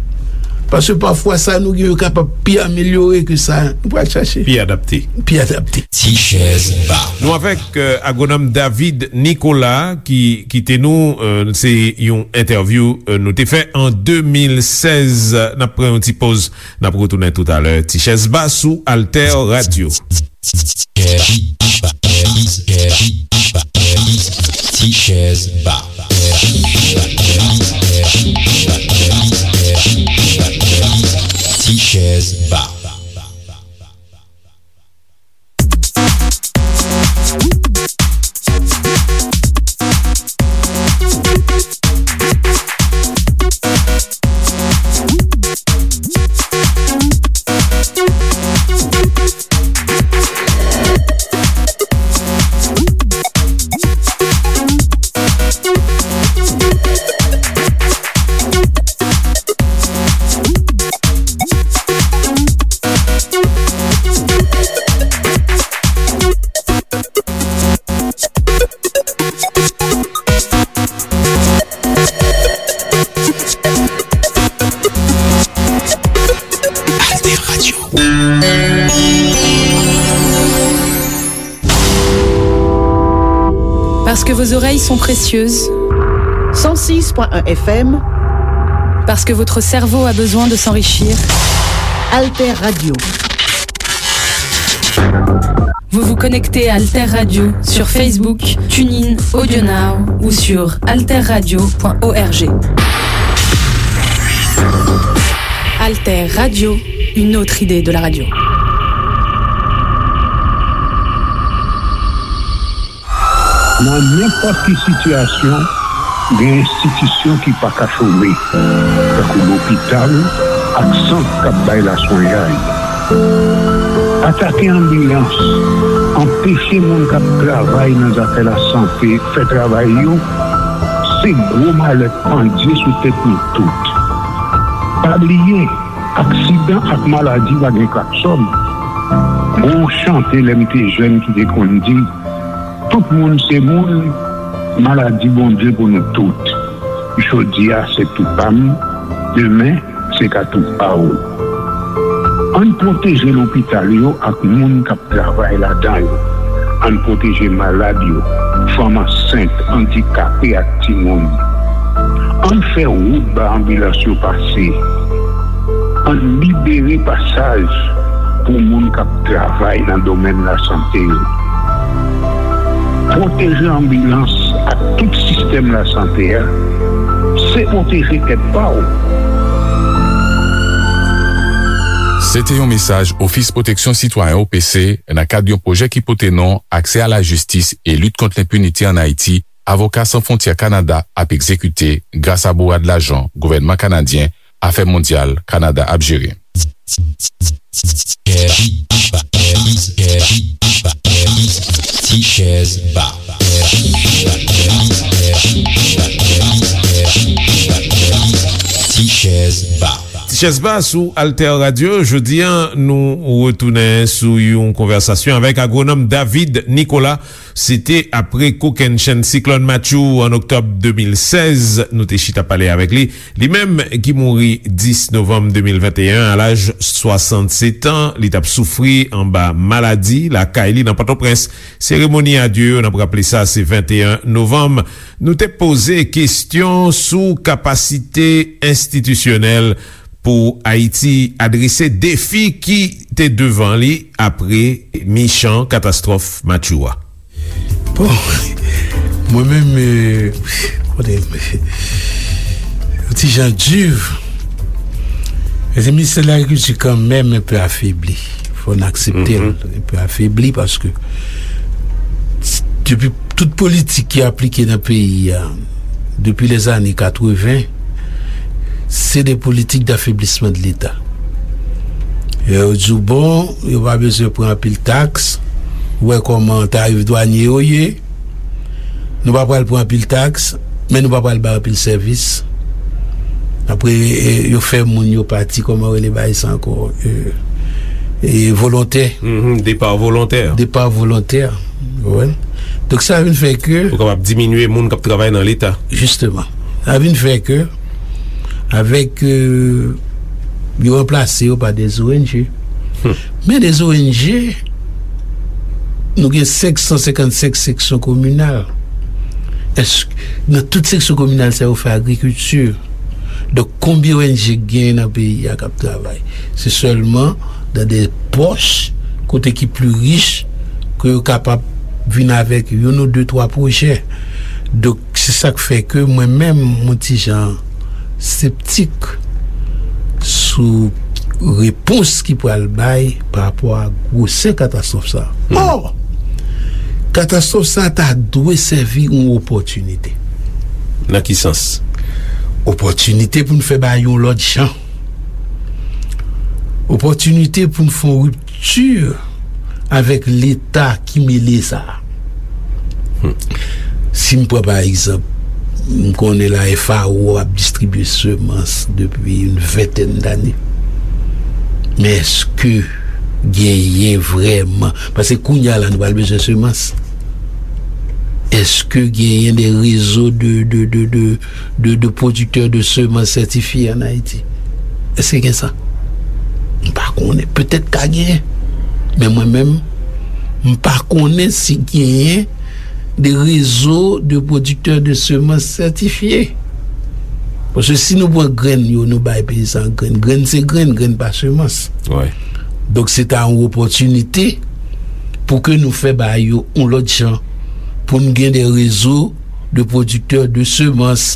Paske pafwa sa nou genyen yo kapab pi amelyore ke sa nou pral chache. Pi adapte. Pi adapte. Ti chèz ba. Nou avèk, euh, agwonòm David Nicolas ki kite nou, euh, se yon entèvyou, euh, nou te fè an de mil sèz. N ap pran yon ti poz, n ap retounen toutalè. Ti chèz ba sou Alter Radio. Ti chèz ba. Ti chèz ba. Vos oreilles sont précieuses. Cent six point un F M. Parce que votre cerveau a besoin de s'enrichir. Alter Radio. Vous vous connectez à Alter Radio sur Facebook, TuneIn, AudioNow ou sur alterradio point org. Alter Radio, une autre idée de la radio. Nan nenpòt ki sitiyasyon, gen enstitisyon ki pa ka chome, tankou lopital ak sant k ap bay laswenyay. Atake anbilans, anpeche moun k ap travay nan zafè lasante fè travay yo, se gwo malè k pandye sou tèt nou tout. Pa bliye, aksidan ak maladi pa gen klaksòn. Gon chante lè m te jèn ki te konn di, tout moun se moun, maladi Bondye pou nou tout. Jodi a se tou pa m, demen se ka tou pa w. Ann pwoteje lopital yo ak moun k ap travay ladan yo. Ann pwoteje malad yo, fanm ansent, andikape ak timoun. Ann fè wout ba anbilans yo pase. Ann libere pasaj pou moun k ap travay nan domèn lasante yo. Pwoteje anbilans ak tout sistèm lasante a, se pwoteje tèt pa w. Se te yon mesaj Ofis Pwoteksyon Sitwayen, O P C, nan kad yon pwojè ki pote non Aksè a la jistis e lit kont lenpinite ann Ayiti, Avoka San Fwontyè Kanada ap egzekite gras a bourad lajan gouvènman kanadyen Afè Mondyal Kanada ap jere. Ti chèz ba. Ti chèz ba. Ti chèz ba sou Alter Radio. Jodi a, nou retounen sou yon konvèsasyon avèk agwonòm David Nicolas. Se te apre kokennchenn siklòn Matthew an oktòb de mil sèz, nou te chita pale avèk li. Li menm ki mouri dis novanm de mil venteyen a laj swasannsèt an, li t ap soufri anba maladi lakay li nan Pòtoprens. Seremoni adye yo, n ap raple sa, se venteyen novanm. Nou te poze kesyon sou kapasite enstitisyonèl pou Ayiti adrese defi ki te devan li apre michan katastwòf Matthew a. Bon, mwen menm, euh, kote, yon ti jan di, se ministè de lagrikilti kanmenm enpe afebli. Fò n aksepte l, enpe afebli paske depi tout politik ki aplike nan peyi a, depi lèzane katreven, se de politik dafeblisman de Leta. Yo di w, bon, yo pa bezwen pran anpil taks. Ou wè kòman tarif dwanye yo ye. Nou pa pral pran anpil taks, men nou pa pral bay anpil sèvis. Apre, e, yo fè moun yo pati, kòman rele bagay sa ankò? E, e, volontè. Mhm, depa volontè. Depa volontè. Ou konprann? Donk, sa vin fè ke. Pou kapab diminye moun k ap travay nan Leta. Jisteman. Sa vin fè ke, avèk, euh, yo ranplase yo pa de O N G. Hmm. Men de O N G, nou gen senk san senkannsenk seksyon kominal. Èske, nan tout seksyon kominal sa yo fè agrikilti? Donk, konbyen O N G k genyen nan peyi a k ap travay? Se sèlman nan de pòch kote ki pli rich ke yo kapab vin avèk youn ou de, twa pwojè. Donk, se sa k fè ke mwen menm, mwen ti jan septik sou repons ki pral bay pa rapò a gwosè katastwòf sa a. Ò! Katastwòf sa a ta dwe sèvi yon opòtinite. Nan ki sans? Opòtinite pou n fè bagay yon lòt jan. Opòtinite pou n fè yon ripti avèk Leta ki mele sa a. Hmm. Si m pran pa egzanp, m konnen la F A O ap distribye semans depi yon ventèn dane. Men èske genyen vrèman? Paske kounye a la, nou pral bezwen semans. Èske genyen de rezo de, de, de, de, de, de pwodiktè de semans sètifye ann Ayiti? Èske gen sa? M pa konnen. Petèt ka genyen. Men mwen menm, m pa konnen si genyen de rezo de pwodiktè de semans sètifye. Paske si nou pran grenn yo, nou bay peyizan grenn. Grenn se grenn, grenn pa semans. Donk, se ta yon opòtinite pou ke nou fè bagay yo yon lòt jan, pou n gen de rezo de pwodiktè de semans.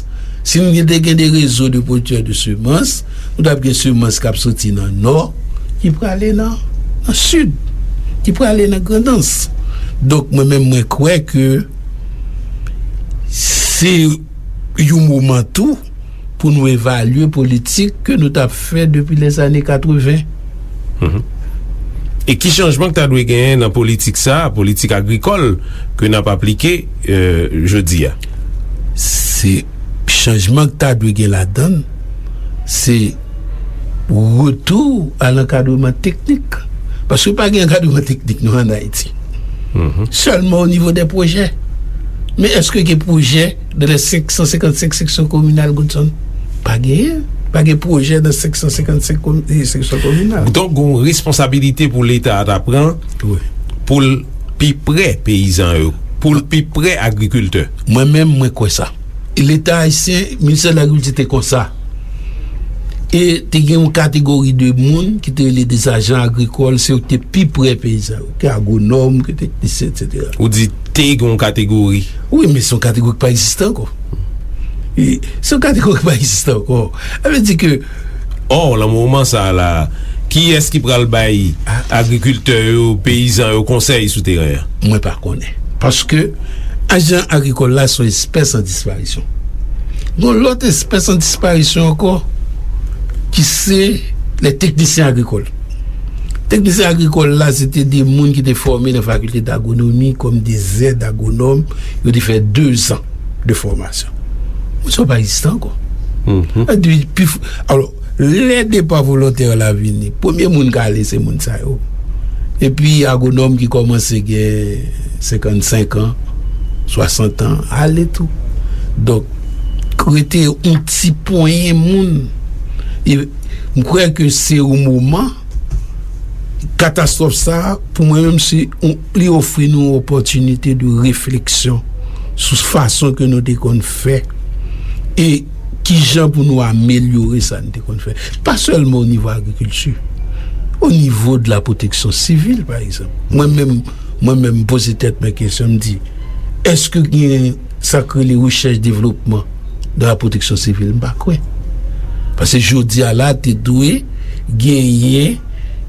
Si n te gen de rezo de pwodiktè de semans, nou t ap gen semans k ap soti nan nò, ki prale nan, nan sid, ki prale nan Grandans. Donk, mwen menm, mwen kwè ke se yon moman tou pou nou evalye politik ke nou t ap fè depi lèzane katreven. E ki chanjman k ta dwe genyen nan politik sa a, politik agrikòl ke n ap aplike, euh, jodi a? Se chanjman k ta dwe gen ladan l, se retou a lankadreman teknik. Paske pa gen ankadreman teknik non ann Ayiti. Sèlman o nivo de pwojè. Men èske gen pwojè nan lè senk san senkannsenk seksyon kominal Goodson? Pa genyen. Pa gen pwojè nan senk san senkannsenk komi- seksyon kominal. Donk, gen yon responsabilite pou Leta a ta pran pou l pi pre peyizan yo, pou l pi pre agrikiltè. Mwen menm, mwen kwè sa. Leta ayisyen, Ministè de Lagrikilti te konsa. E te gen yon kategori de moun ki te rele de ajan agrikòl, se yo ki te pi pre peyizan yo, ke agwonòm, ke teknisyen, etsetera. Ou di te gen yon kategori? Wi, men se yon kategori ki pa egziste ankò. E se yon kategori ki pa egziste ankò. Sa vle di ke Ò, nan moman sa a la, kiyès ki pral bay agrikiltè yo, peyizan yo konsèy sou teren an? Mwen pa konnen. Paske ajan agrikòl la se yon espès an disparisyon. Gon lòt espès an disparisyon ankò, ki se lè teknisyen agrikòl. Teknisyen agrikòl la, se te de moun ki te fòme nan fakilte dagwonomi kòm de zèd agwonòm. Yo te fè dezan de fòmasyon. Moun sa yo pa egziste ankò. Sa di, pi f- alò, lè depa volontè la vini, premye moun k ale se moun sa yo. Epi agwonòm ki kòmanse gen senkannsenk an, swasant an, ale tou. Donk, rete yon ti ponyen moun. E m kwè ke se yon moman, katastwòf sa a, pou mwen menm, se yon, li ofri nou yon opòtinite de refleksyon sou fason ke nou te konn fè e kijan pou nou amelyore sa n te konn fè. Pa sèlman o nivo agrikilti, o nivo de la pwoteksyon sivil, pa egzanp. Mwen menm, mwen menm, m poze tèt mwen kesyon, m di, èske gen sa k rele rechèch devlopman nan la pwoteksyon sivil? M pa kwè. Paske jodi a la, te dwe genyen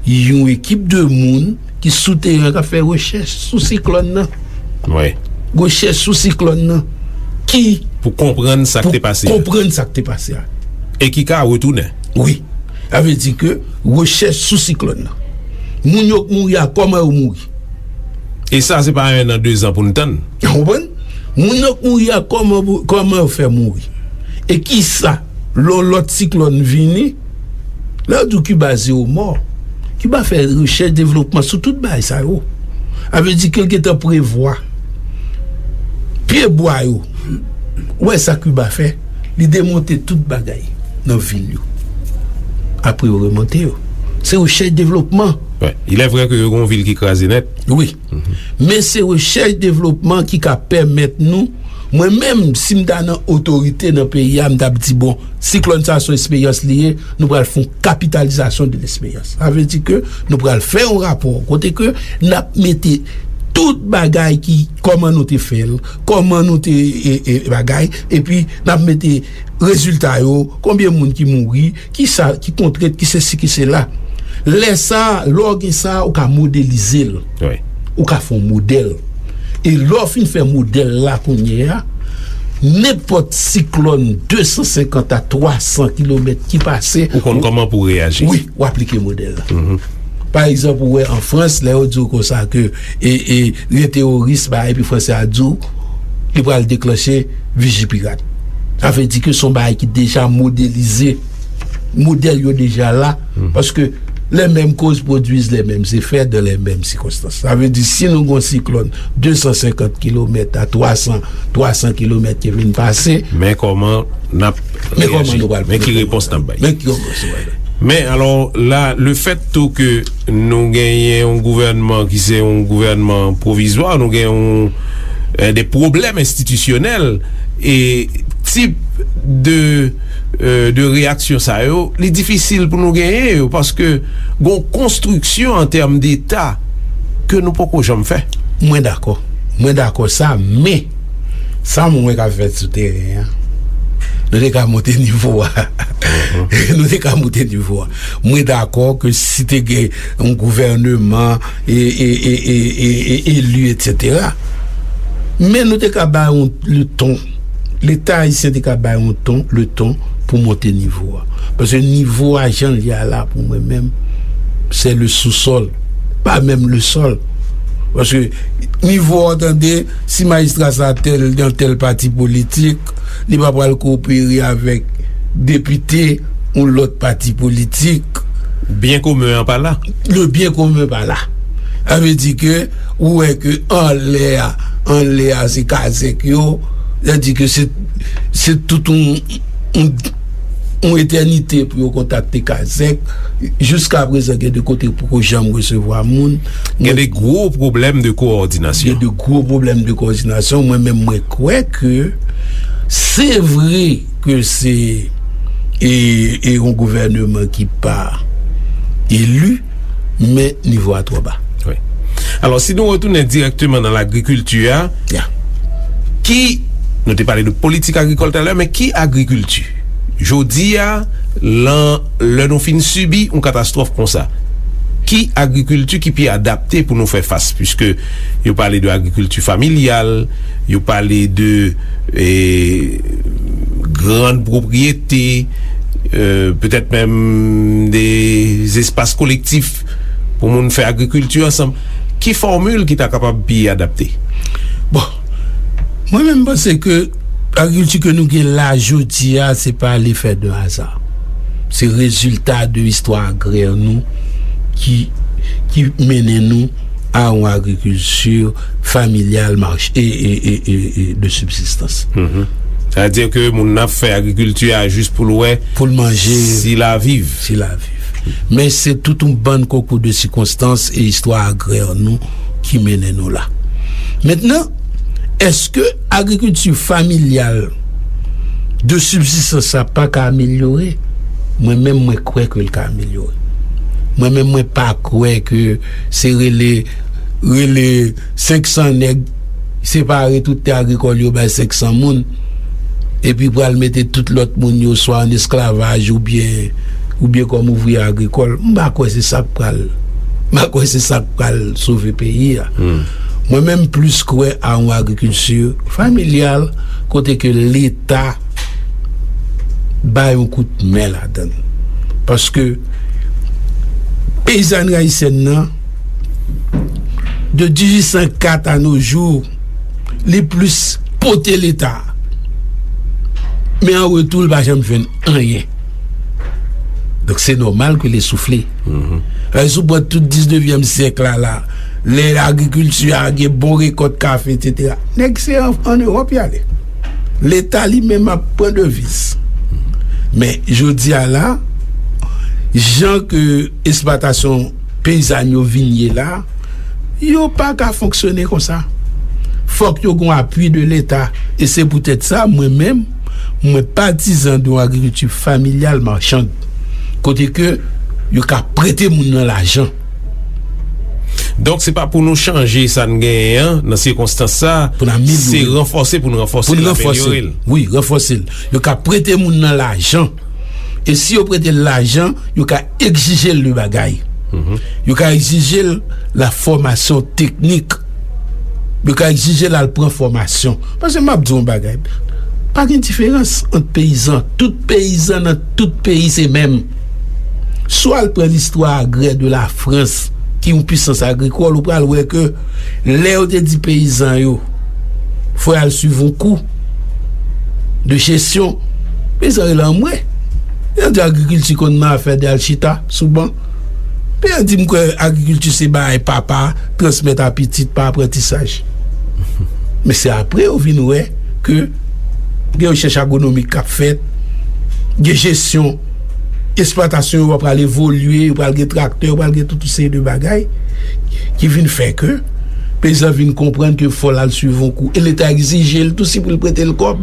yon ekip de moun ki sou teren k ap fè rechèch sou siklòn nan. Wi. Rechèch sou siklòn nan. Ki pou konprann sa k te pase a. Pou konprann sa k te pase a. E ki ka retounen. Wi. Sa vle di ke rechèch sou siklòn nan. Moun yo k mouri a, kòman yo mouri? E sa, se pa en an, de zan pou n tann. Ou konprann? Moun yo k mouri a, kòman, kòman yo fè mouri? E kisa, lè yon lòt siklòn vini, lè yo di w Kiba zewo mò, Kiba fè rechèch devlopman sou tout bagay sa yo. Sa vle di ke l gentan prevwa pye bwa yo. Ou wè sa Kiba fè? Li demonte tout bagay nan vil yo. Apre yo remonte yo. Se rechèch devlopman. Wi. Il est vrai que yo gen yon vil ki kraze nèt. Wi. Men se rechèch devlopman ki ka pèmèt nou, mwen menm, si m ta nan otorite nan peyi a, m t ap di, bon, siklòn sa a se yon esperyans li ye, nou pral fè yon kapitalizasyon de lesperyans. Sa vle di ke nou pral fè yon rapò kote ke n ap mete tout bagay ki, kòman nou te fè l, kòman nou te, e, e, bagay, epi n ap mete rezilta yo, konbyen moun ki mouri, ki sa, ki kontrent, ki sesi, ki sela. Lè sa a, lè w gen sa a, ou ka modelize l. Wi. Ou ka fè yon modèl. E lè w fin fè modèl la kounye a, nenpòt siklòn de san senkant a twa san kilomèt ki pase, ou konn kòman pou w reyaji. Wi, w aplike modèl la. Pa egzanp, ou wè an Frans, lè yo di w konsa ke, e, e, gen teworis, ba, epi Fransè a di w, li pral deklanche Vigipirat. Sa vle di ke se yon bagay ki deja modelize. Modèl yo deja la, paske les mêmes causes produisent les mêmes effets dans les mêmes circonstances. Sa vle di, si nou gen yon siklòn de san senkant kilomèt a twa san, twa san kilomèt ki vin pase, men kòman n ap reyaji? Men kòman nou pral, men ki repons n ap bay? Men ki repons nou pral bay? Men alò, la, le fèt tou ke nou genyen yon gouvènman ki se yon gouvènman pwovizwa, nou gen yon, eh, de pwoblèm enstitisyonèl, e tip de, eh, de reyaksyon sa yo, li difisil pou nou genyen yo, paske gon konstriksyon an tèm deta ke nou poko janm fè. Mwen dakò. Mwen dakò sa, men sa mwen wè k ap fèt sou teren an, nou te ka monte nivo a. Nou te ka monte nivo a. Mwen dakò ke si te gen yon gouvèneman e, e, e, e, e, e, eli, etsetera. Men nou te ka bay yon, le ton. Leta ayisyen te ka bay yon ton, le ton pou monte nivo a. Paske nivo a jan l ye a la, pou mwen menm, se le sous-sol, pa menm le sol. Paske nivo a, w tande, si majistra sa tèl, nan tèl pati politik, li pa pral kopere avèk depite yon lòt pati politik. Byen komen an pa la. Le byen komen pa la. Sa vle di ke ou wè ke anlè a, anlè a se kazèk yo, sa di ke se, se tout yon, yon, yon etènite pou yo kontakte kazèk. Jiska prezan, gen de kote poko janm resevwa moun. Gen de gwo pwoblèm de kowòdinasyon. Gen de gwo pwoblèm de kowòdinasyon. Mwen menm, mwen kwè ke se vre ke se, e, e yon gouvèneman ki pa eli, men nivo a twò ba. Wi. Alò, si nou retounen dirèkteman nan lagrikilti a, Ya. Ki, nou te pale de politik agrikòl talè, men ki agrikilti? Jodi a, lan, lè nou fin sibi yon katastwòf konsa, ki agrikilti ki pi adapte pou nou fè fas? Piske yo pale de agrikilti familyal, yo pale de, eh, grann pwopriyete, eh, petèt menm de espas kolektif pou moun fè agrikilti ansanm. Ki fòmil ki ta kapab pi adapte? Bon, mwen menm, m panse ke agrikilti ke nou gen la jodi a, se pa lefè de aza. Se rezilta de istwa agrè nou ki, ki mennen nou a yon agrikilti familyal, mach-, e, e, e, e, e de sibsistans. Mhm. Sa vle di ke moun nan ap fè agrikilti a jis pou l wè, pou l manje, si l a viv. Si l a viv. Men se tout yon bann konkou de sikonstans e istwa agrè nou ki mennen nou la. Mentnan, èske agrikilti familyal de sibsistans sa pa ka amelyore? Mwen menm, mwen kwè ke l ka amelyore. Mwen menm, mwen pa kwè ke se rele, rele senk san nèg, separe tout tè agrikòl yo bay senk san moun, epi pral mete tout lòt moun yo swa an esklavaj oubyen, oubyen kòm ouvriyè agrikòl. M pa kwè se sa k pral, m pa kwè se sa k pral sove peyi a. Hmm. Mwen menm, m plis kwè a yon agrikilti familyal kote ke Leta bay yon kout men ladan l. Paske peyizanri ayisyèn nan, de dizuit san kat a no jou, li plis pote Leta. Men an retou, li pa janm jwenn anyen. Donk, se nòmal ke li soufle. Mhm. Paske si w pran tout diznevyèm syèk la, la, lè agrikilti a gen bon rekòt kafe, etsetera, nèg se an, an Ewòp y ale. Leta li menm ap pran deviz. Men, jodi a la, jan ke esplwatasyon peyizàn yo vin ye la, yo pa ka fonksyone konsa. Fòk yo gon apui de Leta. E se poutèt sa, mwen menm, mwen patizan de yon agrikilti familyal machann. Kote ke yo ka prete moun nan lajan. Donk, se pa pou nou chanje sa n genyen an, nan sikonstans sa, pou n amelyore, se ranfòse pou n ranfòse l, amelyore l. Wi, ranfòse l. Yo ka prete moun nan lajan. E si yo prete l lajan, yo ka egzije l de bagay. Mhm. Yo ka egzije l la fòmasyon teknik. Yo ka egzije l al pran fòmasyon. Paske m ap di w yon bagay. Pa gen diferans ant peyizan. Tout peyizan nan tout peyi se menm. Si w al pran listwa agrè de la Frans, ki yon pisans agrikòl, ou pral wè ke lè yo te di peyizan yo, fò y al swiv yon kou de jesyon, peyizan rele anmwe. Yo di agrikilti konn nan afè de al chita sou ban. Peyizan di, m kwè agrikilti se bagay papa transmèt a pitit pa aprantisaj. Men se apre yo vin wè ke gen rechèch agwonomik k ap fèt, gen jesyon, esplwatasyon yo pral evolye, yo pral gen traktè, yo pral gen tout yon seri de bagay ki vin fè ke Peyizan vin konprann ke fò l al swiv yon kou. E Leta egzije l tou, si pou l prete l kòb,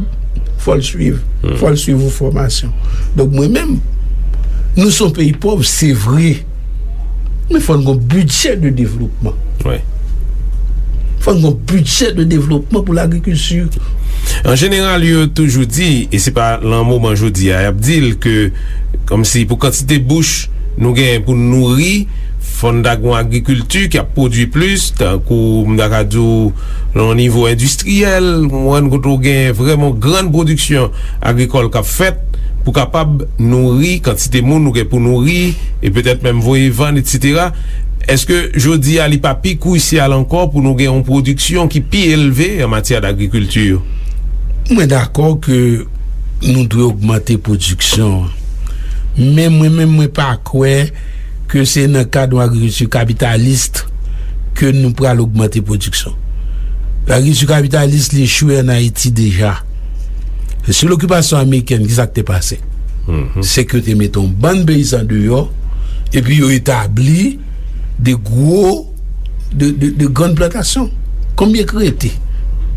fò l swiv. Fò l swiv yon fòmasyon. Donk, mwen menm, nou se yon peyi pòv, se vre. Men fò n gen yon bidjè de devlopman. Fò n gen yon bidjè de devlopman pou lagrikilti. An jeneral, yo toujou di, e se pa lan moman jodi a, y ap di l ke, kòmsi pou kantite bouch nou genyen pou n nouri, fò n ta gen yon agrikilti ki ap pwodui plis, tankou m ta ka di w, nan yon nivo endistriyèl, ou konprann, kote w gen vrèman yon grann pwodiksyon agrikòl k ap fèt, pou kapab nouri kantite moun nou gen pou nouri, e petèt menm voye vann, etsetera. Èske jodi a li pa pi kwisyal ankò pou nou gen yon pwodiksyon ki pi elve an matyè dagrikilti? Mwen dakò ke nou dwe ogmante pwodiksyon an. Men mwen menm, mwen pa kwè ke se nan kad yon agrikilti kapitalis ke nou pral ogmante pwodiksyon. Lagrikilti kapitalis, li echwe ann Ayiti deja. Sou lokipasyon amerikèn, ki sa k te pase? Se ke te mete yon bann peyizan deyò, epi yo etabli de gwo, de, de, de grann plantasyon. Konbyen k rete?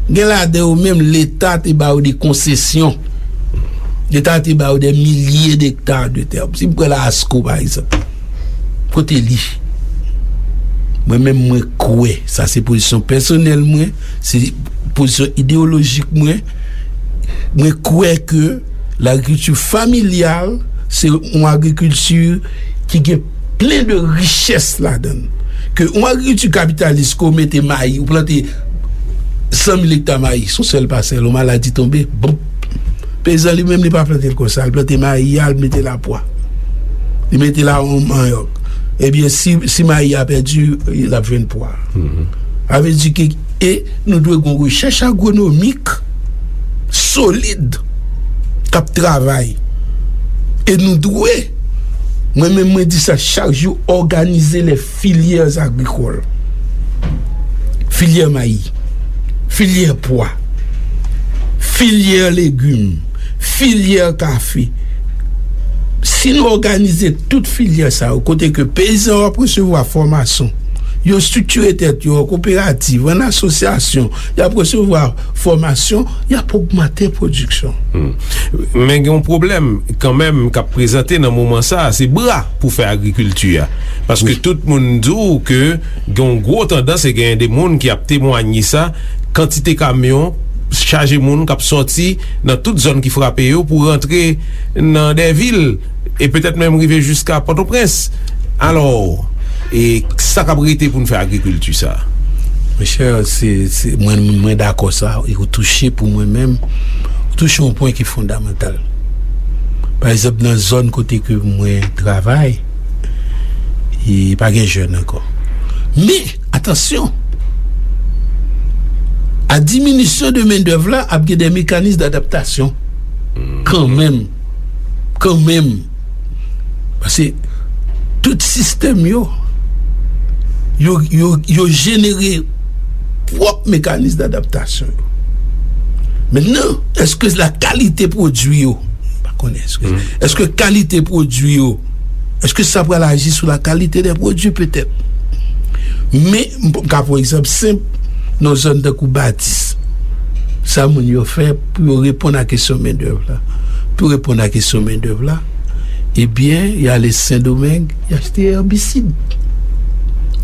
Gen ladan yo menm, Leta te ba yo de konsesyon. Leta te ba yo de milye dekta de tè. Si m pran la Asko, pa egzanp, kote li? Mwen menm, mwen kwè, sa se pozisyon pèsonèl mwen, se pozisyon ideyolojik mwen, mwen kwè ke lagrikilti familyal, se yon agrikilti ki gen plen de richès ladan l. Ke yon agrikilti kapitalis, ke w mete mayi, ou plante san mil ekta mayi, se yon sèl pasèl, yon maladi tonbe, bonp, peyizan li menm, li pa plante l konsa, li plante mayi a, li mete l a pwa. Li mete l a yon manyòk. Ebyen, si, si mayi a pèdi, l ap jwenn pwa. Sa vle di ke, e nou dwe gen yon rechèch agwonomik solid k ap travay. E nou dwe, mwen menm mwen di sa chak jou, òganize les filières agricoles. Filyè mayi, filyè pwa, filyè legim, filyè kafe. Si nou òganize tout filyè sa yo, kote ke peyizan yo ap resevwa fòmasyon, yo estriktire tèt yo an koperativ, an asosyasyon, y ap resevwa fòmasyon, y ap ogmante pwodiksyon. Men gen yon pwoblèm kanmenm k ap prezante nan moman sa a, se bra pou fè agrikilti a. Paske tout moun di w ke gen yon gwo tandans e genyen de moun ki ap temwanye sa, kantite kamyon chaje moun k ap sòti nan tout zòn ki frape yo pou rantre nan dè vil e petèt menm rive jiska Pòtoprens. Alò, e sa k ap rete pou n fè agrikilti sa a? Monchè, se, se, mwen, mwen dakò sa, e ou touche pou mwen menm, ou touche yon pwen ki fondamantal. Pa egzanp, nan zòn kote ke mwen travay, e pa gen jèn ankò. Men, atansyon, a diminisyon de mendèv la, ap gen de mekanis dadaptasyon. Kanmenm. Kanmenm. Paske tout sistèm yo, yo, yo, yo jenere pwòp mekanis dadaptasyon yo. Mentnan, èske la kalite pwodui yo, m pa konnen, èske, èske kalite pwodui yo, èske sa pral aji sou la kalite dè pwodui? Petèt. Men, m p-, m ka pran egzanp senp, nan zòn tankou Batis. Sa moun yo fè pou yo reponn a kesyon mendèv la? Pou yo reponn a kesyon mendèv la, ebyen, y ale Sendomeng, y achte èbisid.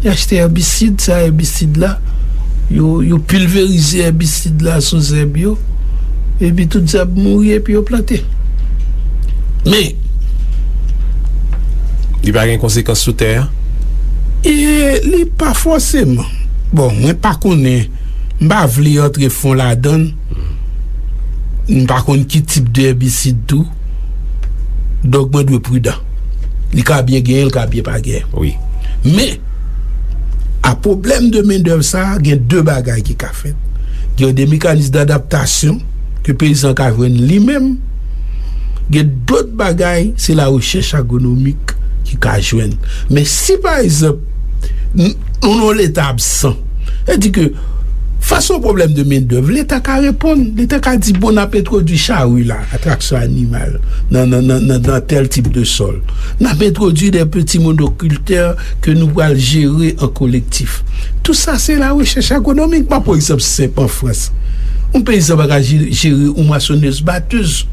Y achte èbisid, sa èbisid la, yo, yo pilverize èbisid la sou zèb yo, epi tout zèb mouri, epi yo plante. Men, li pa gen konsekans sou tè a? E li pa fòseman. Bon, mwen pa konnen, m pa vle antre fon ladan l. M pa konn ki tip de èbisid tou. Donk, mwen dwe pridan. Li ka byen genyen, li ka byen pa genyen. Wi. Men, a pwoblèm de mendèv sa a, gen de bagay ki ka fèt. Gen de mekanis dadaptasyon ke peyizan ka jwenn li menm. Gen dòt bagay, se la rechèch agwonomik ki ka jwenn. Men si, pa egzanp, n-, nou nan yon leta absan, sa di ke Fas a yon pwoblèm de mendèv, Leta ka reponn. Leta ka di, bon, n ap entwodui chari la, a traksyon animal, nan, nan, nan, nan, nan tèl tip de sòl. N ap entwodui de peti monokiltè ke nou pral jere an kolektif. Tou sa, se la rechèch agronomik. M ap pran egzanp senp an Frans. Yon peyizan pa ka je-, jere yon mwasonèz batèz.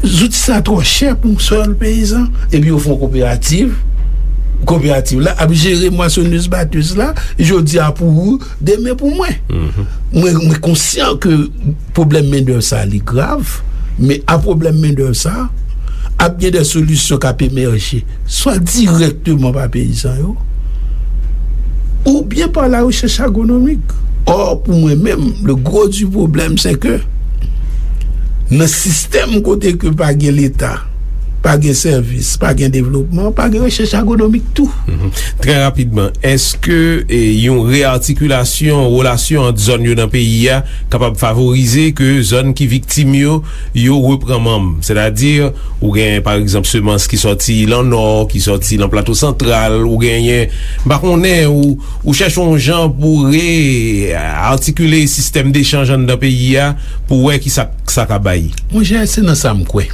Zouti sa twò chè pou yon sèl peyizan. Epi yo fè yon koperativ. Koperativ la ap jere mwasonèz batèz la. Jodi a pou ou, demen pou mwen. Mwen, mwen konsyan ke pwoblèm mendèv sa li grav, men a pwoblèm mendèv sa, ap gen de solisyon k ap emèje, swa dirèkteman pa peyizan yo, oubyen pa la rechèch agronomik. Or, pou mwen menm, le gros du problème, c'est que nan sistèm kote ke pa gen Leta, pa gen sèvis, pa gen devlopman, pa gen rechèch agronomik tou. Trè rapidman, èske, e, yon reatikilasyon relasyon ant zòn yo nan peyi a kapab favorize ke zòn ki viktim yo, yo repran manm? Sètadi, ou gen, pa egzanp, semans ki sòti lan Nò, ki sòti lan Plato Santral, ou genyen, m pa konnen, ou, ou chèche yon jan pou re-atikile sistèm dechanj anndan peyi a, pou wè ki sa, sa ka bay. Monchè, se nan sa m kwè.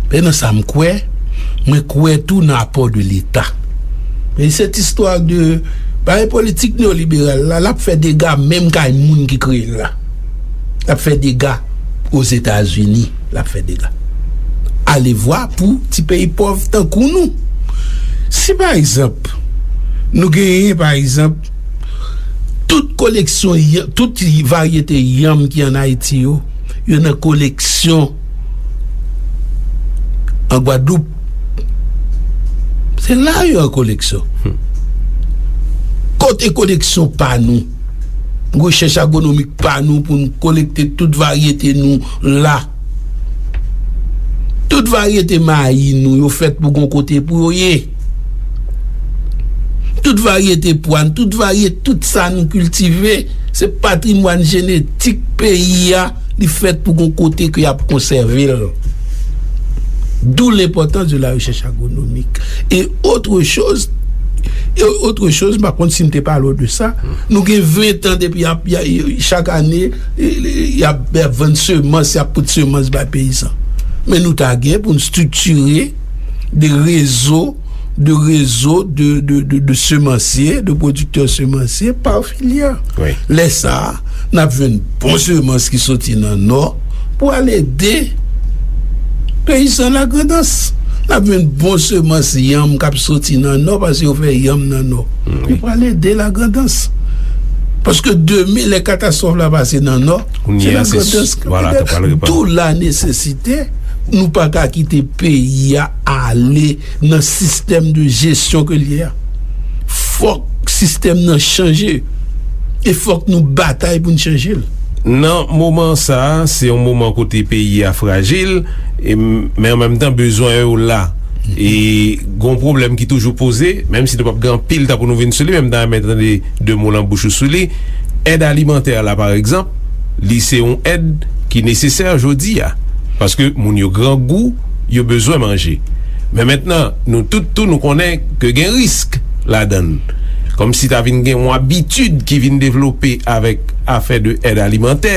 E nan sa m kwè, mwen kwè tou nan apò de Leta. Men cette histoire de, bagay politik neyoliberal la, l ap fè dega menm kay moun ki kreye l la. L ap fè dega Ozetazini, l ap fè dega. Alevwa pou ti peyi pòv tankou nou. Si, pa egzanp, nou genyen, pa egzanp, tout koleksyon, y- tout varyete yanm ki ann Ayiti yo, yo nan koleksyon an Gwadloup. Se la yo an koleksyon. Kote koleksyon pa nou? Rechèch agronomik pa nou pou n kolekte tout varyete nou la. Tout varyete mayi nou yo fèt pou gon kote pou yo ye. Tout varyete pwa n, tout varyete, tout sa nou kiltive, se patrimwàn jenetik peyi a, li fèt pou gon kote ke y ap konsève l. D'où l'importance de la recherche agronomique. Et autre chose, et autre chose, m pa konn si m te pale w de sa, nou gen ven tan depi y ap, y a, chak ane, y ap, y ap vann semans, y ap pote semans bay peyizan. Men nou ta gen pou n striktire de rezo, de rezo de, de, de, de semansye, de pwodiktè semansye pa filyè. Wi. Lè sa a, n ap jwenn bon semans ki soti nan Nò pou al ede peyizan Lagrandans. N ap jwenn bon semans yanm k ap soti nan Nò, paske yo fè yanm nan Nò. Wi. Yo pral ede Lagrandans. Paske demen, lè katastwòf la pase nan Nò, se Lagrandans k ap ede. D'où la nesesite, nou pa ka kite peyi a ale nan sistèm de jesyon ke l ye a. Fòk sistèm nan chanje. E fòk nou batay pou n chanje l. Nan moman sa a, se yon moman kote peyi a frajil, e, men an menm tan, bezwen yo la. E gon pwoblèm ki toujou poze, menm si nou p ap gen anpil tan pou nou vin sou li, men m ta renmen tande de mo nan bouch ou sou li. Èd alimantè la, pa egzanp, li se yon èd ki nesesè jodi a. Paske moun yo grangou, yo bezwen manje. Men mentnan, nou tout tou, nou konnen ke gen risk ladan l. Kòmsi ta vin gen yon abitid ki vin devlope avèk afè de èd alimantè,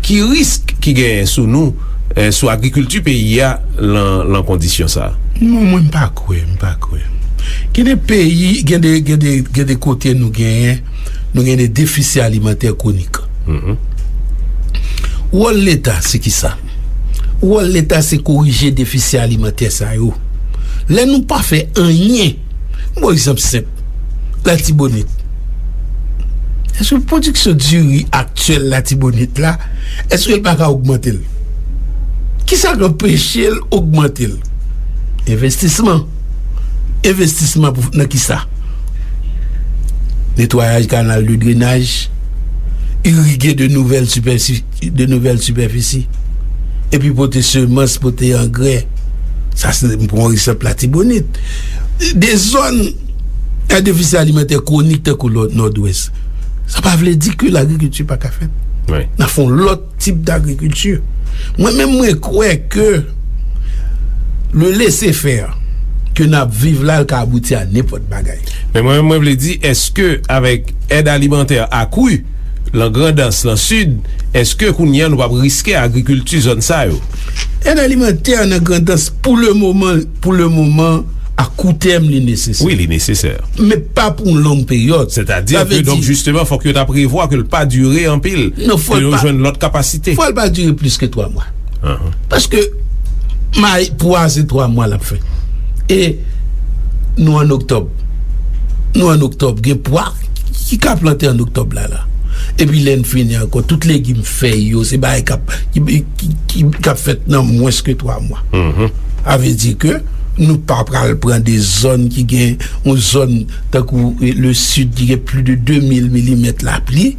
ki risk ki genyen sou nou, eh, sou agrikilti peyi a lan, lan kondisyon sa a? Non, mwen m pa kwè, m pa kwè. Gen de peyi, gen de, gen de, gen de kote nou genyen, nou gen de defisi alimantè kwonik. Wòl Leta se kisa? Wòl Leta se korije defisi alimantè sa yo. Lè nou pa fè anyen, m ba w egzanp senp, Latibonit. Èske pwodiksyon diri aktyèl Latibonit la, èske l pa ka ogmante l? Kisa k anpeche l ogmante l? Envestisman. Envestisman pou, nan kisa? Netwayaj kanal de drenaj, irige de nouvèl sipèsi-, de nouvèl sipèfisi, epi pote semans, pote angrè. Sa se, m pran egzanp Latibonit. De zòn a defisi alimantè kwonik tankou Nò-, Nòdwès. Sa pa vle di ke lagrikilti pa ka fèt. Wi. N a fè yon lòt tip dagrikilti. Mwen menm, mwen kwè ke le laissez-faire, ke n ap viv la, l ka abouti a nenpòt bagay. Men mwen, mwen vle di, èske avèk èd alimantè akri lan Grandans, lan Sid, èske kounye a nou p ap riske agrikilti zòn sa yo? Èd alimantè nan Grandans, pou le moman, pou le moman, a kou tèm, li nesesè. Wi, li nesesè. Men pa pou yon long peryòd. Sètadi ke, donk, jisteman, fòk yo ta prevwa ke l pa dire anpil, ke yo jwenn lòt kapasite. Fò l pa dire plis ke twa mwa. Paske may, pwa se twa mwa l ap fè. E nou an oktòb. Nou an oktòb, gen pwa ki ka plante an oktòb la, la. Epi lè n fini ankò, tout legim, fèy yo, se bagay k ap, ki, ki, ki, k ap fèt nan mwens ke twa mwa. Sa vle di ke nou pa pral pran de zòn ki gen, yon zòn tankou, eh, le Sid ki gen plis de de mil milimèt lapli,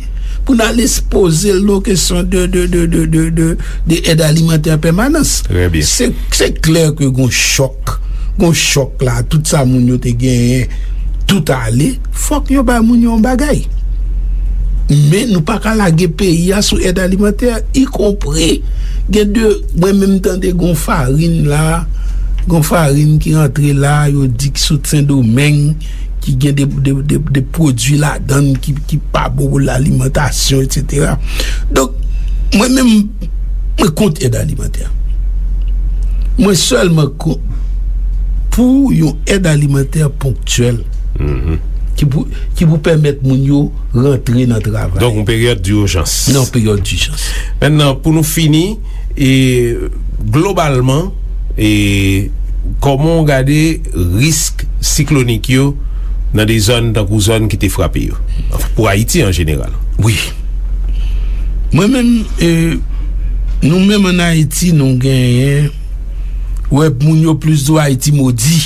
pou n al ekspoze l nan kesyon de, de, de, de, de, de, de èd alimantè an pèmanans. Trè byen. Se, se klè ke gon chòk, gon chòk la, tout sa moun yo te genyen, tout ale, fòk yo bay moun yo yon bagay. Men nou pa ka lage peyi a sou èd alimantè, ikonpri gen de, mwen menm tande gon farin la, gon farin ki rantre la, yo di ki sot Sendomeng, ki gen de, de, de, de pwodui ladan l ki, ki pa bon pou lalimantasyon, etsetera. Donk, mwen menm, mwen kont èd alimantè. Mwen sèlman kont pou yon èd alimantè ponktyèl ki pou, ki pou pèmèt moun yo rantre nan travay. Donk, yon peryòd dijans. Nan yon peryòd dijans. Mentnan, pou nou fini, e, globalman, e, kòman w gade risk siklonik yo nan de zòn tankou zòn ki te frape yo? Anfen, pou Ayiti an jeneral. Wi. Mwen menm, e, nou menm ann Ayiti, nou genyen, wè, moun yo plis di w Ayiti modi.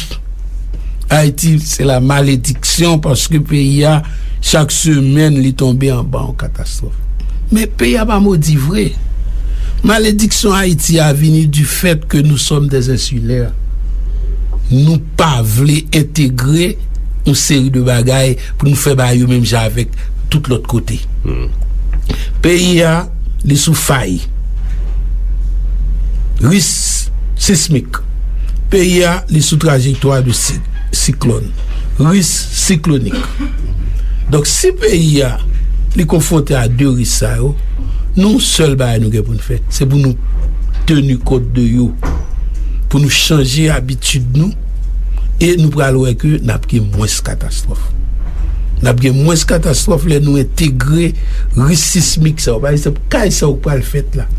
Ayiti, se la malediksyon paske peyi a, chak semèn, li tonbe anba yon katastwòf. Men peyi a pa modi vre. Malediksyon Ayiti a vini du fait que nous sommes des insulaires. Nou pa vle entegre yon seri de bagay pou nou fè bagay yo menm jan avèk tout lòt kote. Peyi a, li sou fay. Risk sismik. Peyi a, li sou trajektwa de si-, siklòn. Risk siklonik. Donk, si peyi a, li konfwonte a de risk sa yo, nou, sèl bagay nou gen pou n fè, se pou nou teni kont de yo, pou nou chanje abitid nou, e nou pral wè ke n ap gen mwens katastwòf. N ap gen mwens katastwòf lè nou entegre risk sismik sa yo. Pa egzanp, kay sa yo k pral fèt la.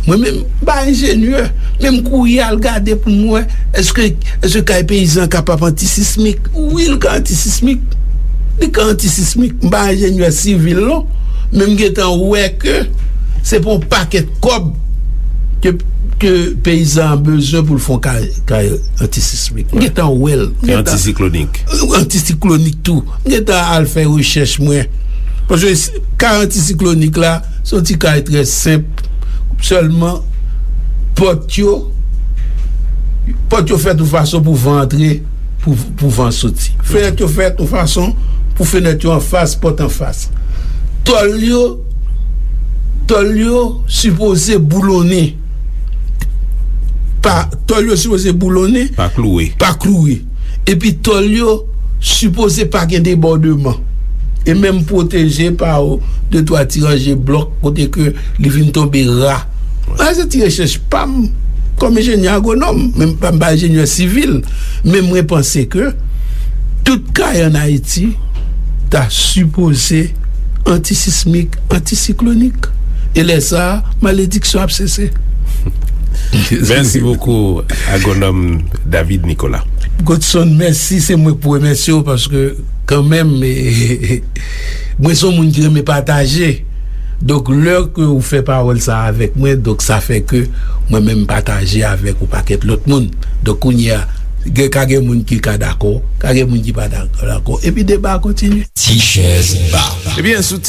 Mwen menm, m pa enjenyè, men m kouri al gade pou m wè, èske, èske kay peyizan kapab antisismik? Wi, l ka antisismik. Li ka antisismik. M pa enjenyè sivil, non, men m gentan wè ke se pou yon pakèt kòb ke, ke peyizan an bezwen pou l fè yon kay, kay antisismik. M gentan wè l. M gentan antisiklonik. Antisiklonik tou. M gentan al fè rechèch mwen. Paske s-, kay antisiklonik la, se yon ti kay trè senp. Sèlman, pòt yo, pòt yo fèt yon fason pou van antre, pou, pou van soti. Fenèt yo fèt yon fason pou fenèt yo anfas, pòt anfas. Tòl yo, tòl yo sipoze boulonnen. Pa, tòl yo sipoze boulonnen. Pa klouwe. Pa klouwe. Epi tòl yo sipoze pa gen debòdman. E menm pwoteje pa de twa ti ranje blòk kote ke li vin tonbe ra. Sa se ti rechèch pa m kòm enjenyè agwonòm, men m pa, m pa enjenyè sivil, men mwen panse ke tout kay ann Ayiti ta sipoze antisismik, antisiklonik. E lè sa a, malediksyon ap sese. Mèsi bokou, agwonòm David Nicolas. Godson, mèsi, se mwen k pou remèsye w paske kanmenm, e, mwen se yon moun ki renmen pataje. Donk, lè ke ou fè pawòl sa avèk mwen, donk sa fè ke mwen menm pataje avèk yon pakèt lòt moun. Donk, kounye a, gen, ka gen moun ki ka dakò, ka gen moun ki pa dakò, dakò. Epi deba a kontinye. Ti chèz ba. Ebyen, sou